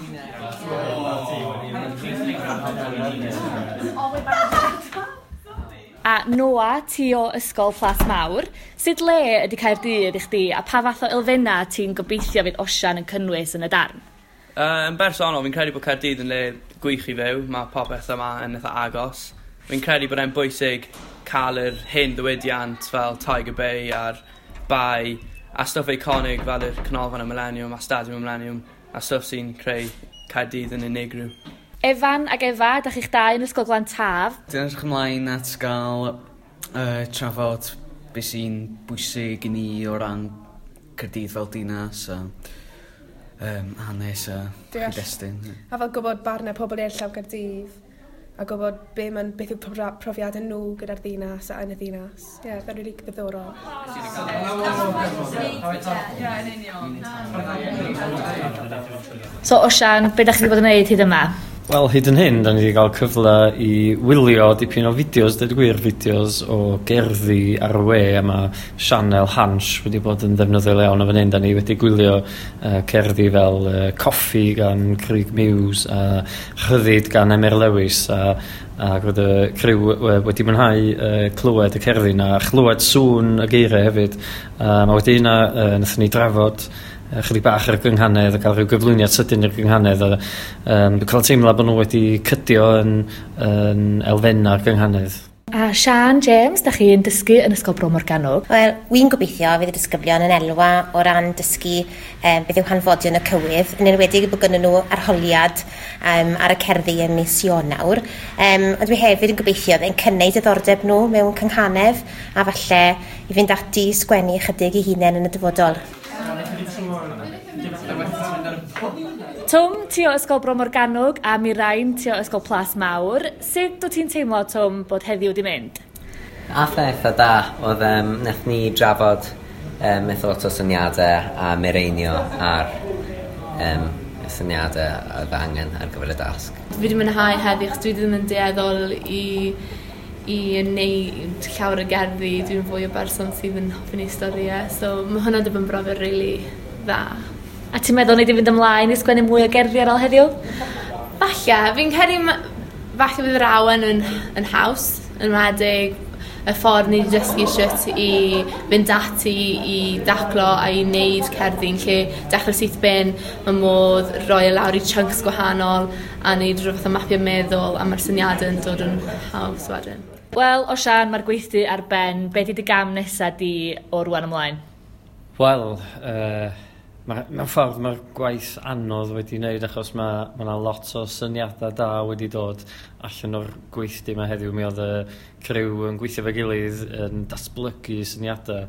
A Noa, ti o Ysgol Plas Mawr, sut le ydy Caerdydd i chdi a pa fath o elfennau ti'n gobeithio fydd Osian yn cynnwys yn y darn? Yn bersonol, fi'n credu bod Caerdydd yn le gwych i fyw. Mae popeth yma yn eitha agos. Fi'n credu bod e'n bwysig cael yr hen ddiwydiant fel Tiger Bay a'r Bay a stwff eiconig fel yr Canolfan y Millennium a Stadiwm y Millennium a stwff sy'n creu Caerdydd yn unigryw. Efan ac Efa, da chi'ch dau yn Ysgol Glan Taf. Dwi'n edrych ymlaen at gael trafod beth sy'n bwysig i ni o ran Caerdydd fel dinas a hanes a cyd-destun. A fel gwybod barnau pobl eraill am Gaerdydd a gwybod beth yw profiadau nhw gyda'r ddinas a yn y ddinas. Ie, yeah, fe'n rili ddiddorol. So Osian, be da chi wedi bod yn gwneud hyd yma? Wel, hyd yn hyn, da ni wedi cael cyfle i wylio dipyn o fideos, dweud gwir, fideos o gerddi ar y we, a mae sianel Hansh wedi bod yn ddefnyddiol iawn o fan hyn. Da ni wedi gwylio cerddi fel Coffi gan Craig Muse a Rhyddid gan Emyr Lewis, a roedd y criw wedi mwynhau clywed y cerddi na, a chlywed sŵn y geiriau hefyd. A wedi hynna, nathon ni drafod chydig bach ar y gynghanedd a cael rhyw gyflwyniad sydyn i'r gynghanedd a dwi'n cael teimlo bod nhw wedi cydio yn elfennau'r gynghanedd. A Sian James, da chi'n dysgu yn Ysgol Bro Morgannwg. Wel, wy'n gobeithio fydd y disgyblion yn elwa o ran dysgu beth yw hanfodion y cywydd, yn enwedig bod gynnon nhw arholiad ar y cerddi ym mis Ionawr. Ond dwi hefyd yn gobeithio yn cynnau diddordeb nhw mewn cynghanedd a falle i fynd ati i sgwennu ychydig eu hunain yn y dyfodol. Twm, ti o Ysgol Bro Morgannwg a Mirain, ti o Ysgol Plas Mawr. Sut wyt ti'n teimlo, Twm, bod heddiw wedi mynd? Ath e eitha da. Oedd nath ni drafod eitha lot o syniadau a mireinio ar y syniadau oedd angen ar gyfer y dasg. Fi wedi mwynhau heddiw, achos dwi ddim yn dueddol i i wneud llawer o gerddi, dwi'n fwy o berson sydd yn hoffi neud storïau, so mae hwnna wedi bod yn brofiad rili dda. A ti'n meddwl nei di fynd ymlaen i sgwennu mwy o gerddi ar ôl heddiw? Falle, fi'n credu falle bydd yr awen yn haws, yn enwedig y ffordd ni wedi dysgu shwt i fynd ati i daclo a i wneud cerddi'n lle dechrau syth bin, mae modd rhoi e lawr i chunks gwahanol a wneud rhyw fath o mapio meddwl a mae'r syniadau yn dod yn haws wedyn. Wel, Osian, mae'r gweithdy ar ben. Be di dy gam nesa di o rwan ymlaen? Wel, mewn ffordd mae'r gwaith anodd wedi wneud achos mae yna lot o syniadau da wedi dod allan o'r gweithdy yma heddiw. Mi oedd y criw yn gweithio fe gilydd yn datblygu syniadau.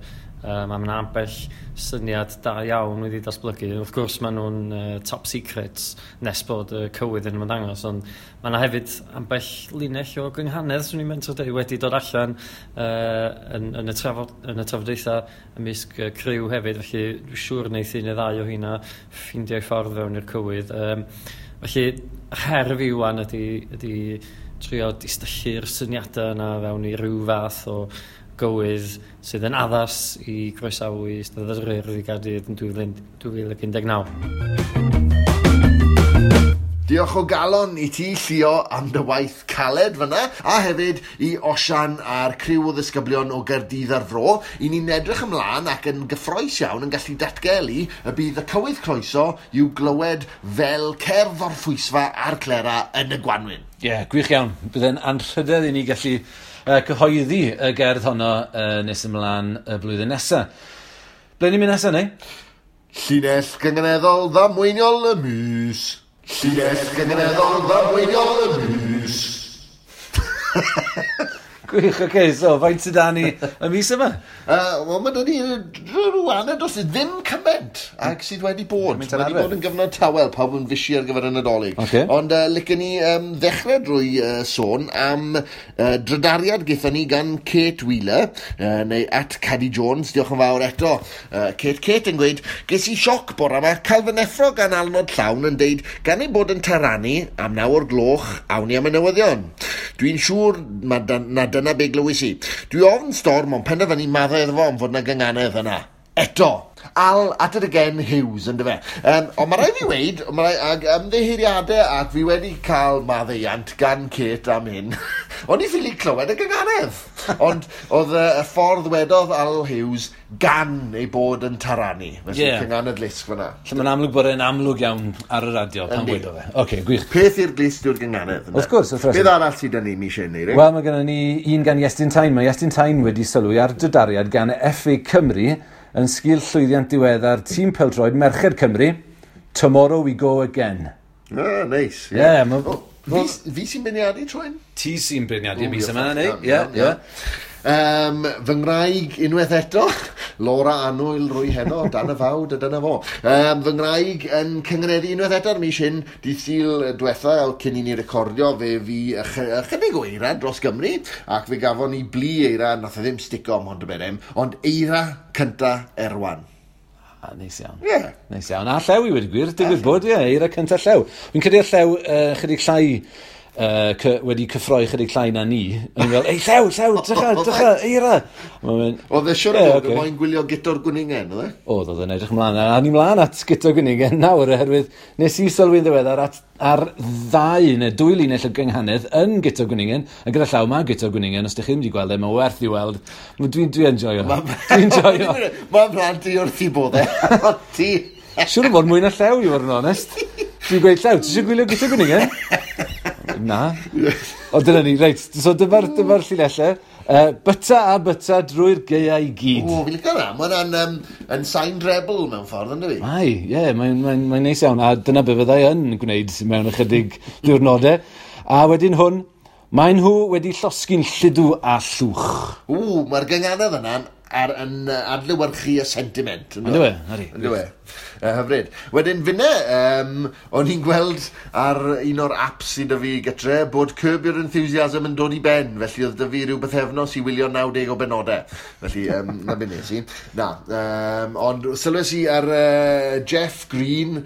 A mae yna ambell syniad da iawn wedi datblygu. Wrth gwrs maen nhw'n top secrets nes bod y cywydd yn ymddangos, ond mae yna hefyd ambell linell o gynghanedd, swn i'n mentro dweud, wedi dod allan yn y trafodaethau ymysg y criw hefyd, felly dwi'n siŵr wneith un neu ddau o hynna ffeindio'i ffordd fewn i'r cywydd. Felly her fi wan ydy trio distyllu'r syniadau yna fewn i ryw fath o gywydd sydd yn addas i groesawu Eisteddfod yr Urdd i Gaerdydd yn 2019. Diolch o galon i ti, Llio, am dy waith caled fyna, a hefyd i Osian a'r criw o ddisgyblion o Gaerdydd a'r Fro. I ni'n edrych ymlaen ac yn gyffrous iawn yn gallu datgelu y bydd y cywydd croeso i'w glywed fel cerdd orffwysfa a'r clera yn y gwanwyn. Ie, yeah, gwych iawn. Bydd e'n anrhydedd i ni gallu cyhoeddi y gerdd honno nes ymlaen y blwyddyn nesaf. Ble ni'n mynd nesaf, neu? Llinell gynganeddol ddamweiniol y mis. Llinell gynganeddol ddamweiniol y mis. Gwych, oce, so faint sydd da ni y mis yma? Wel, mae da ni rhyw aned dros ddim cymaint ag sydd wedi bod. Mae wedi bod yn gyfnod tawel, pawb yn fysi ar gyfer y Nadolig. Okay. Ond licen ni ddechrau drwy sôn am drydariad gaethon ni gan Kate Wheeler, neu at Caddy Jones, diolch yn fawr eto. Kate yn gweud, ges i sioc bore yma, cael fy neffro gan alnod llawn yn deud, gan ei bod yn taranu am 9 o'r gloch, awn ni am y newyddion. Dwi'n siŵr na dyna be glywys i. Dwi ofn storm, ond penderfynu maddau iddo fo am fod na gynganedd yna. Eto, Al at it again Hughes, yndyfe. Ond mae rhaid fi weud, ag ymddiheuriadau, ac fi wedi cael maddeuant gan Kate am hyn. O'n i ffili clywed y gynganedd. Ond oedd y ffordd wedodd Al Hughes gan ei bod yn taranu. Felly yeah. Cynganedd lusg fyna. Lle mae'n amlwg bod e'n amlwg iawn ar y radio pan wedodd e. Oce, gwych. Peth i'r glust yw'r gynganedd. Wrth gwrs, wrth reswm. Beth arall sydd 'da ni mis hyn, Eirin? Wel, mae gennym ni un gan Iestyn Tyne. Mae Iestyn Tyne wedi sylwi ar drydariad gan FA Cymru yn sgil llwyddiant diweddar tîm pêl-droed Merched Cymru, Tomorrow We Go Again. Ah, neis. Yeah. Fi sy'n beirniadu tro hyn? Ti sy'n beirniadu mis yma, neu? Ie, ie. Fy ngwraig unwaith eto, Laura Annwyl rwy heno, dan y fawd a dyna fo. Fy ngwraig yn cyngeneddu unwaith eto ar mis hyn, dydd Sul diwetha, cyn i ni recordio, fe fi ychydig o eira dros Gymru, ac fe gafon ni blu eira, nath e ddim stico am Mhontyberem, ond eira cynta Erwan. Ah, neis iawn. Ie. Yeah. Neis iawn. A llew i wedi gwir, digwydd bod, ie, eira cynta llew. Fi'n credu llew chydig llai wedi cyffroi chydig llai na ni. O'n i'n fel, ei, llew, drycha, eira. Oedd e siwr o fod yn moyn gwylio Guto'r Gwningen, oedd e? Oedd yn edrych ymlaen. A ni mlaen at Guto'r Gwningen nawr, oherwydd nes i sylwi'n ddiweddar ar ddau neu dwy linell o gynghanedd yn Guto'r Gwningen, a gyda llaw mae Guto'r Gwningen, os ydych chi ddim wedi gweld e, mae'n werth i weld. Dwi'n enjoyo. Dwi'n enjoyo. Mae'n plant i wrth i bod e. Ti. Siwr o fod mwy na llew, i fod yn onest. Dwi'n gweud, llew, ti eisiau gwylio Guto'r Gwningen? Na. O, dyna ni, reit. So dyma'r llinellau. Byta a byta drwy'r gaeau i gyd. O, fi'n licio hwnna. Mae hwnna'n yn sain rebel mewn ffordd, ynddo fi? Mae, ie, mae'n neis iawn. A dyna be fyddai yn gwneud mewn ychydig diwrnodau. A wedyn hwn, maen nhw wedi llosgi'n lludw a llwch. O, mae'r gynganedd yna'n yn adlewyrchu y sentiment. Ynddo e? Ynddo e. Hyfryd. Wedyn finne, o'n i'n gweld ar un o'r apps sydd 'da fi gytre bod Curb Your Enthusiasm yn dod i ben, felly oedd 'da fi rhyw bythefnos i wylio 90 o benodau. Felly, na be nes i. Na, ond sylwes i ar Jeff Green,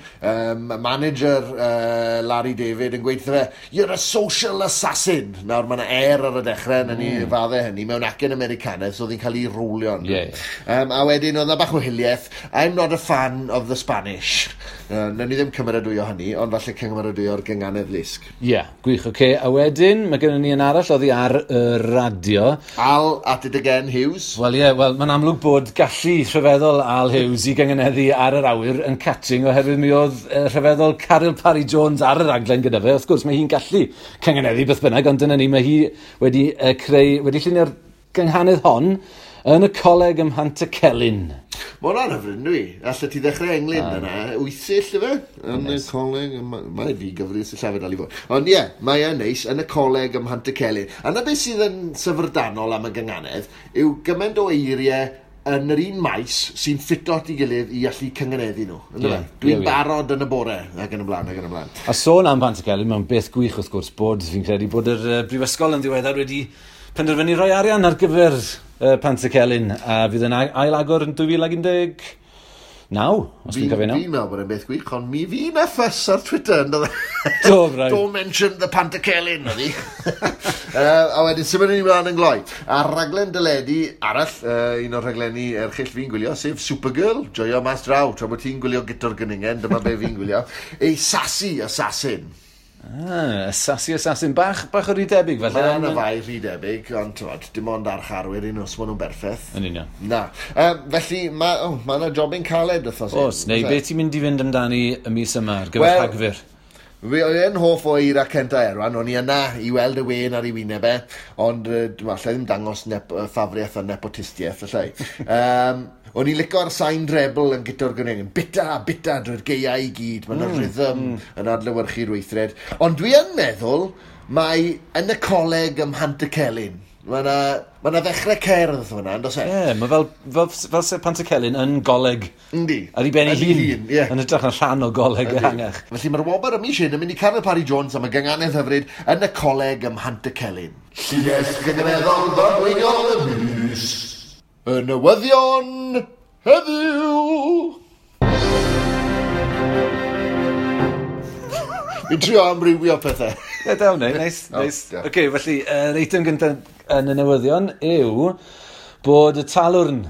manager Larry David, yn gweud wrtho fe, "You're a social assassin." Nawr, mae yna er ar y dechrau, na ni fadde hynny, mewn acen Americanaidd, so oedd hi'n cael ei rowlio. Ie, ie. A wedyn oedd 'na bach o hiliaeth. "I'm not a fan of the Spanish." Nawn ni ddim cymeradwyo hynny, ond falle cymeradwyo'r gynganedd lusg. Ie, yeah, gwych, oce. Okay. A wedyn, mae gennym ni un arall oddi ar y radio. Al at it again, Hughes. Wel ie, yeah, wel, mae'n amlwg bod gallu rhyfeddol Al Hughes i gynganeddu ar yr awyr yn catching oherwydd mi oedd rhyfeddol Caryl Parry Jones ar y raglen gyda fe. Wrth gwrs, mae hi'n gallu cynganeddu beth bynnag, ond dyna ni, mae hi wedi creu, wedi llunio'r gynghanedd hon yn y coleg ym Mhantycelyn. Mae hwnna'n hyfryd, dwi. Allet ti ddechrau englyn yna. Wythyll, ife? Yn y coleg, mae fi gyfri sillafu dal i fod. Ond ie, mae e'n neis, yn y coleg ym Mhantycelyn. A na beth sydd yn syfrdanol am y gynganedd yw gymaint o eiriau yn yr un maes sy'n ffito at ei gilydd i allu cynganeddu nhw. Yndyfe? Dwi'n barod yn y bore, ac yn y blaen, ac yn y blaen. A sôn am Pantycelyn, mae'n beth gwych wrth gwrs bod, fi'n credu bod yr brifysgol yn ddiweddar wedi penderfynu rhoi arian ar gyfer Pantycelyn a fydd yn ail-agor yn 2019, os dwi'n cofio Fi'n meddwl bod e'n beth gwych, ond mi fi na ffys ar Twitter, ynddo fe? Do, braidd. "Don't mention the Pantycelyn," oedd hi. A wedyn, symud ni mlaen yn gloi. A raglen deledu arall, un o'r rhaglenni erchyll fi'n gwylio, sef Supergirl. Joio mas draw, tra bod ti'n gwylio Guto'r Gwningen, dyma be fi'n gwylio. A Sassy Assassin. Ah, Sassy Assassin. Bach o rhy debyg, felly. Mae yna fai rhy debyg, ond t'mod, dim ond archarwyr un os maen nhw'n berffaith. Yn union. Na. Felly, mae oh, ma yna jobyn caled wythnos hyn. Oes, neu beth ti'n mynd i fynd amdani y mis yma ar gyfer Rhagfyr? Fi oedd yn hoff o Eira Centa Erwan, o'n i yna i weld y wen ar ei wyneb e, ond dwi'n allai ddim dangos ffafriaeth a nepotistiaeth, allai. O'n i'n lico'r sain treble yn Guto'r Gwningen. Bita, bita drwy'r gaeau i gyd. Mae'n rhythm yn adlewyrchu'r weithred. Ond dwi yn meddwl mae yn y coleg ym Mhantycelyn. Mae yna ma 'na ddechrau cerdd fyna, yn does e? Ie, yeah, mae fel se Pantycelyn yn goleg. Yndi. Ar ei ben ei Ar ei hun. hun, ie. Yn hytrach na rhan o goleg ehangach. Felly mae'r wobr y mis hyn yn mynd i Caryl Parry Jones am y gynganedd hyfryd yn y coleg ym Mhantycelyn. Llinell gynganeddol ddadweiniol y mis. Y newyddion heddiw. Fi'n trio amrywio pethau. Ie, da wneud, neis, neis. Oce, felly, yr eitem gyntaf yn y newyddion yw bod y Talwrn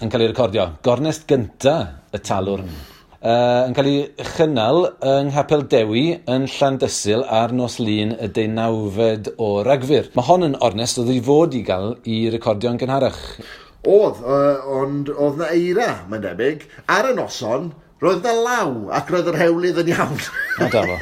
yn cael ei recordio. Gornest gynta y Talwrn. Yn cael ei chynnal yng Nghapel Dewi yn Llandysul ar nos Lun y 19fed o Ragfyr. Mae hon yn ornest oedd i fod i gael i recordio'n gynharach. Oedd, ond oedd na eira, mae'n debyg. Ar y noson, roedd na law, ac roedd yr hewlydd yn iawn. O, da fo.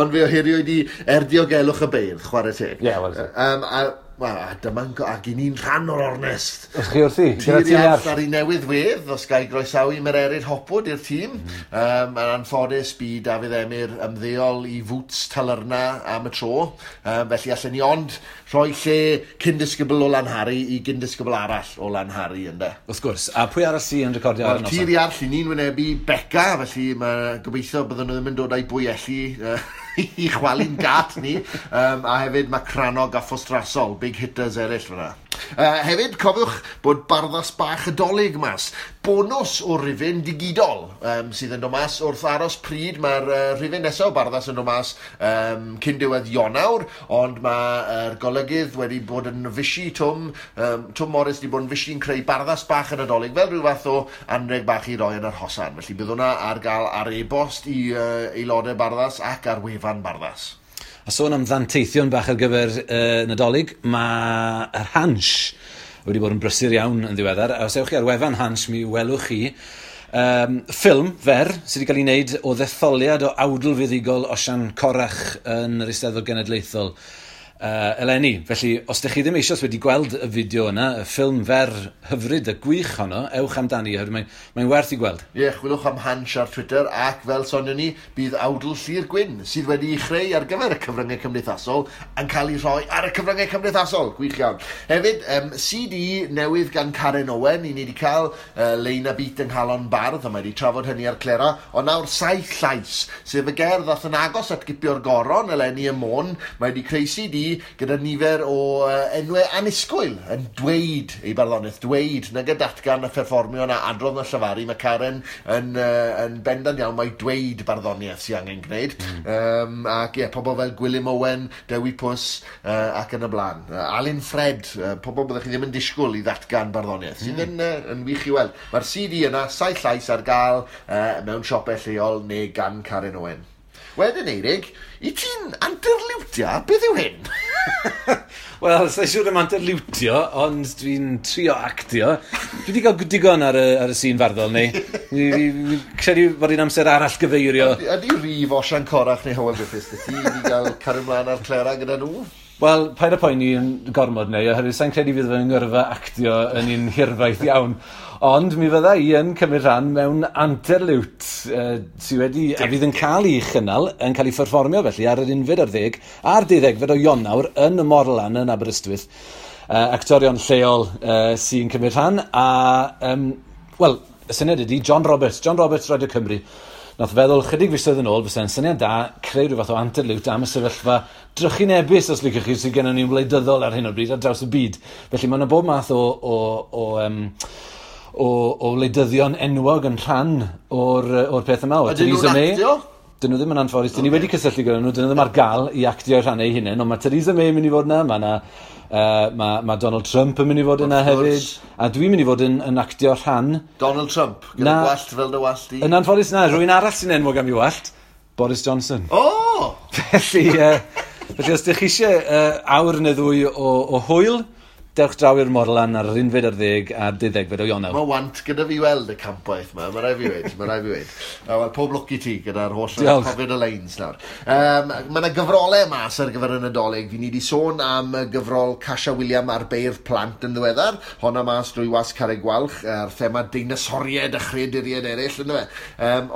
Ond fe ohiriwyd i er diogelwch y beirdd, chwarae teg. Ie, wel. A, wel, a dyma'n, ac i ni'n rhan o'r ornest. Os chi wrthi? Gyda Tir ti Iarll ar. ar ei newydd wedd, os ga i groesawu Mererid Hopwood i'r tîm. Yn anffodus, bu Dafydd Emyr ymddeol i fwts Talyrna am y tro. Felly allen ni ond rhoi lle cyn-disgybl o Lanhari i gyn-disgybl arall o Lanhari, ynde. Wrth gwrs. A pwy arall sy'n recordio ar y Wel, noson? Tir Iarll, i ni'n wynebu Beca, felly mae gobeithio bydden nhw ddim yn dod â'i bwyelli i chwalu'n gat ni. A hefyd mae Cranog a Ffostrasol, big hitters eraill fyna. Hefyd, cofiwch bod Barddas Bach y Dolig mas. Bonws o rifyn digidol sydd yn dod mas wrth aros pryd. Mae'r rifyn nesaf o Barddas yn dod mas cyn diwedd Ionawr, ond mae'r golygydd wedi bod yn fysi Twm, Twm Morris wedi bod yn fysi'n creu Barddas Bach y Nadolig fel rhyw fath o anreg bach i roi yn yr hosan. Felly bydd hwnna ar gael ar e-bost i aelodau Barddas ac ar wefan Barddas. A sôn am ddanteithion bach ar gyfer Nadolig, mae yr Hansh wedi bod yn brysur iawn yn ddiweddar. A os ewch chi ar wefan Hansh, mi welwch chi ffilm fer sydd wedi cael ei wneud o ddetholiad o awdl fuddugol Osian Corach yn yr Eisteddfod Genedlaethol. eleni. Felly, os ydych chi ddim eisoes wedi gweld y fideo yna, y ffilm fer hyfryd a gwych honno, ewch amdani, oherwydd mae'n werth i gweld. Ie, yeah, chwilwch am Hansh ar Twitter, ac fel sonion ni, bydd awdl Llyr Gwyn, sydd wedi'i chreu ar gyfer y cyfryngau cymdeithasol, yn cael ei rhoi ar y cyfryngau cymdeithasol. Gwych iawn. Hefyd, CD newydd gan Karen Owen, i ni wedi cael Lein a Beat yng Nghalon Bardd, a mae wedi trafod hynny ar Clera, ond nawr Saith Llais, sef y gerdd ddath yn agos at gipio'r goron eleni ym Môn. Mae wedi creu CD gyda nifer o enwau annisgwyl yn dweud ei barddoniaeth, dweud nag y datgan a pherfformio na adrodd na llefaru. Mae Karen yn bendant iawn mae dweud barddoniaeth sy'n angen gwneud. Ac ie, pobl fel Gwilym Owen, Dewi Pws ac yn y blaen. Alun Ffred, pobl byddech chi ddim yn disgwyl i ddatgan barddoniaeth, sydd yn wych i weld. Mae'r CD yna, Saith Llais, ar gael mewn siopau lleol neu gan Karen Owen. Wedyn, Eirig, i ti'n anterliwtio? Beth yw hyn? Wel, sa'n siŵr am anterliwtio, ond dwi'n trio actio. Dwi wedi cael digon ar y sîn farddol, neu. Fi credu bod hi'n amser arall gyfeirio. Ydy rif Osian Corach neu Hywel Griffiths dy ti i gael cario ymlaen ar Clera gyda nhw? Wel, paid â poeni yn gormod neu, oherwydd sa'n credu fydd fy ngyrfa actio yn un hirfaith iawn. Ond mi fydda i yn cymryd rhan mewn anterliwt sydd wedi, a fydd yn cael ei chynnal, yn cael ei pherfformio felly ar yr 11 a'r 12 o Ionawr yn y Morlan yn Aberystwyth. Actorion lleol sy'n cymryd rhan, a, wel, y syniad ydy John Roberts, John Roberts Radio Cymru, nath feddwl chydig fisoedd yn ôl, fysa'n syniad da creu rhyw fath o anterliwt am y sefyllfa drychinebus, os liciwch chi, sydd gennym ni'n wleidyddol ar hyn o bryd ar draws y byd. Felly mae yna bob math o wleidyddion enwog yn rhan o'r peth yma. O Ydyn nhw'n Theresa May. actio? Dyn nhw ddim yn anffodus. Dyn ni wedi cysylltu gyda nhw, dyn nhw ddim ar gael i actio rhan eu hunain, ond mae Theresa May yn mynd i fod yna, mae Donald Trump yn mynd i fod yna Wrth gwrs. hefyd, a dwi'n mynd i fod yn actio rhan Donald Trump, gyda Na. gwallt fel dy wallt i. Yn anffodus na, rhywun arall sy'n enwog am ei wallt, Boris Johnson. O! Felly os ydych chi eisiau awr neu ddwy o hwyl, dewch draw i'r Morlan ar yr 11 a'r 12 o Ionawr. Mae want gyda fi weld y campwaith yma, mae rai fi weud, mae rai fi weud. Wel, pob lwc i ti gyda'r holl Diolch. cofio'r y lines nawr. Mae yna gyfrolau mas ar gyfer y Nadolig. Fi ni wedi sôn am y gyfrol Casia William ar beirdd plant yn ddiweddar. Honna mas drwy Wasg Carreg Gwalch, ar thema deinosoriaid a chreaduriaid eraill, ynddo fe.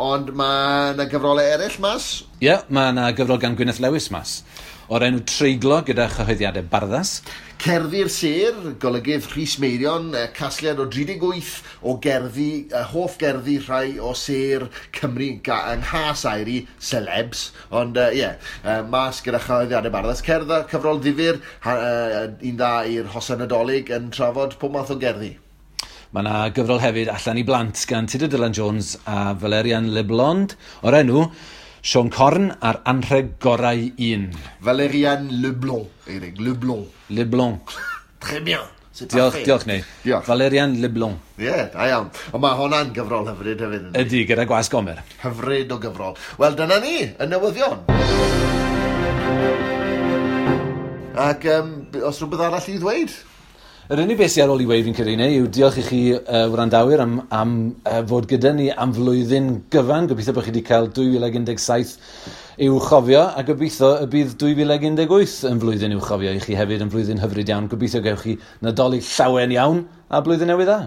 Ond mae yna gyfrolau eraill mas. Ie, yeah, mae yna gyfrol gan Gwyneth Lewis mas, o'r enw Treiglo gyda chyhoeddiadau Barddas. Cerddi'r Sêr, golygydd Rhys Meirion, casgliad o 38 o gerddi, hoff gerddi rhai o sêr Cymru yng nghas air i celebs, ond ie, yeah, mas gyda chyhoeddiadau Barddas. Cerdd a cyfrol ddifyr, un dda i'r hosan Nadolig yn trafod pob math o gerddi. Mae yna gyfrol hefyd allan i blant gan Tudur Dylan Jones a Valerian Leblond o'r enw Siôn Corn a'r anrheg gorau un. Valerian Leblond, Eirig, Leblond. Leblond. Très bien. C'est Diolch, parfait. diolch neu. Diolch. Valerian Leblond. Ie, yeah, da iawn. Ond mae hwnna'n gyfrol hyfryd hefyd. Yndi? Ydy, gyda Gwas Gomer. Hyfryd o gyfrol. Wel, dyna ni, y newyddion. Ac os rhywbeth arall i ddweud? Yr unig beth sydd ar ôl i weud fi'n credu neu yw diolch i chi wrandawyr am fod gyda ni am flwyddyn gyfan. Gobeithio bod chi wedi cael 2017 i'w chofio a gobeithio y bydd 2018 yn flwyddyn i'w chofio i chi hefyd yn flwyddyn hyfryd iawn. Gobeithio gewch chi Nadolig llawen iawn a blwyddyn newydd dda.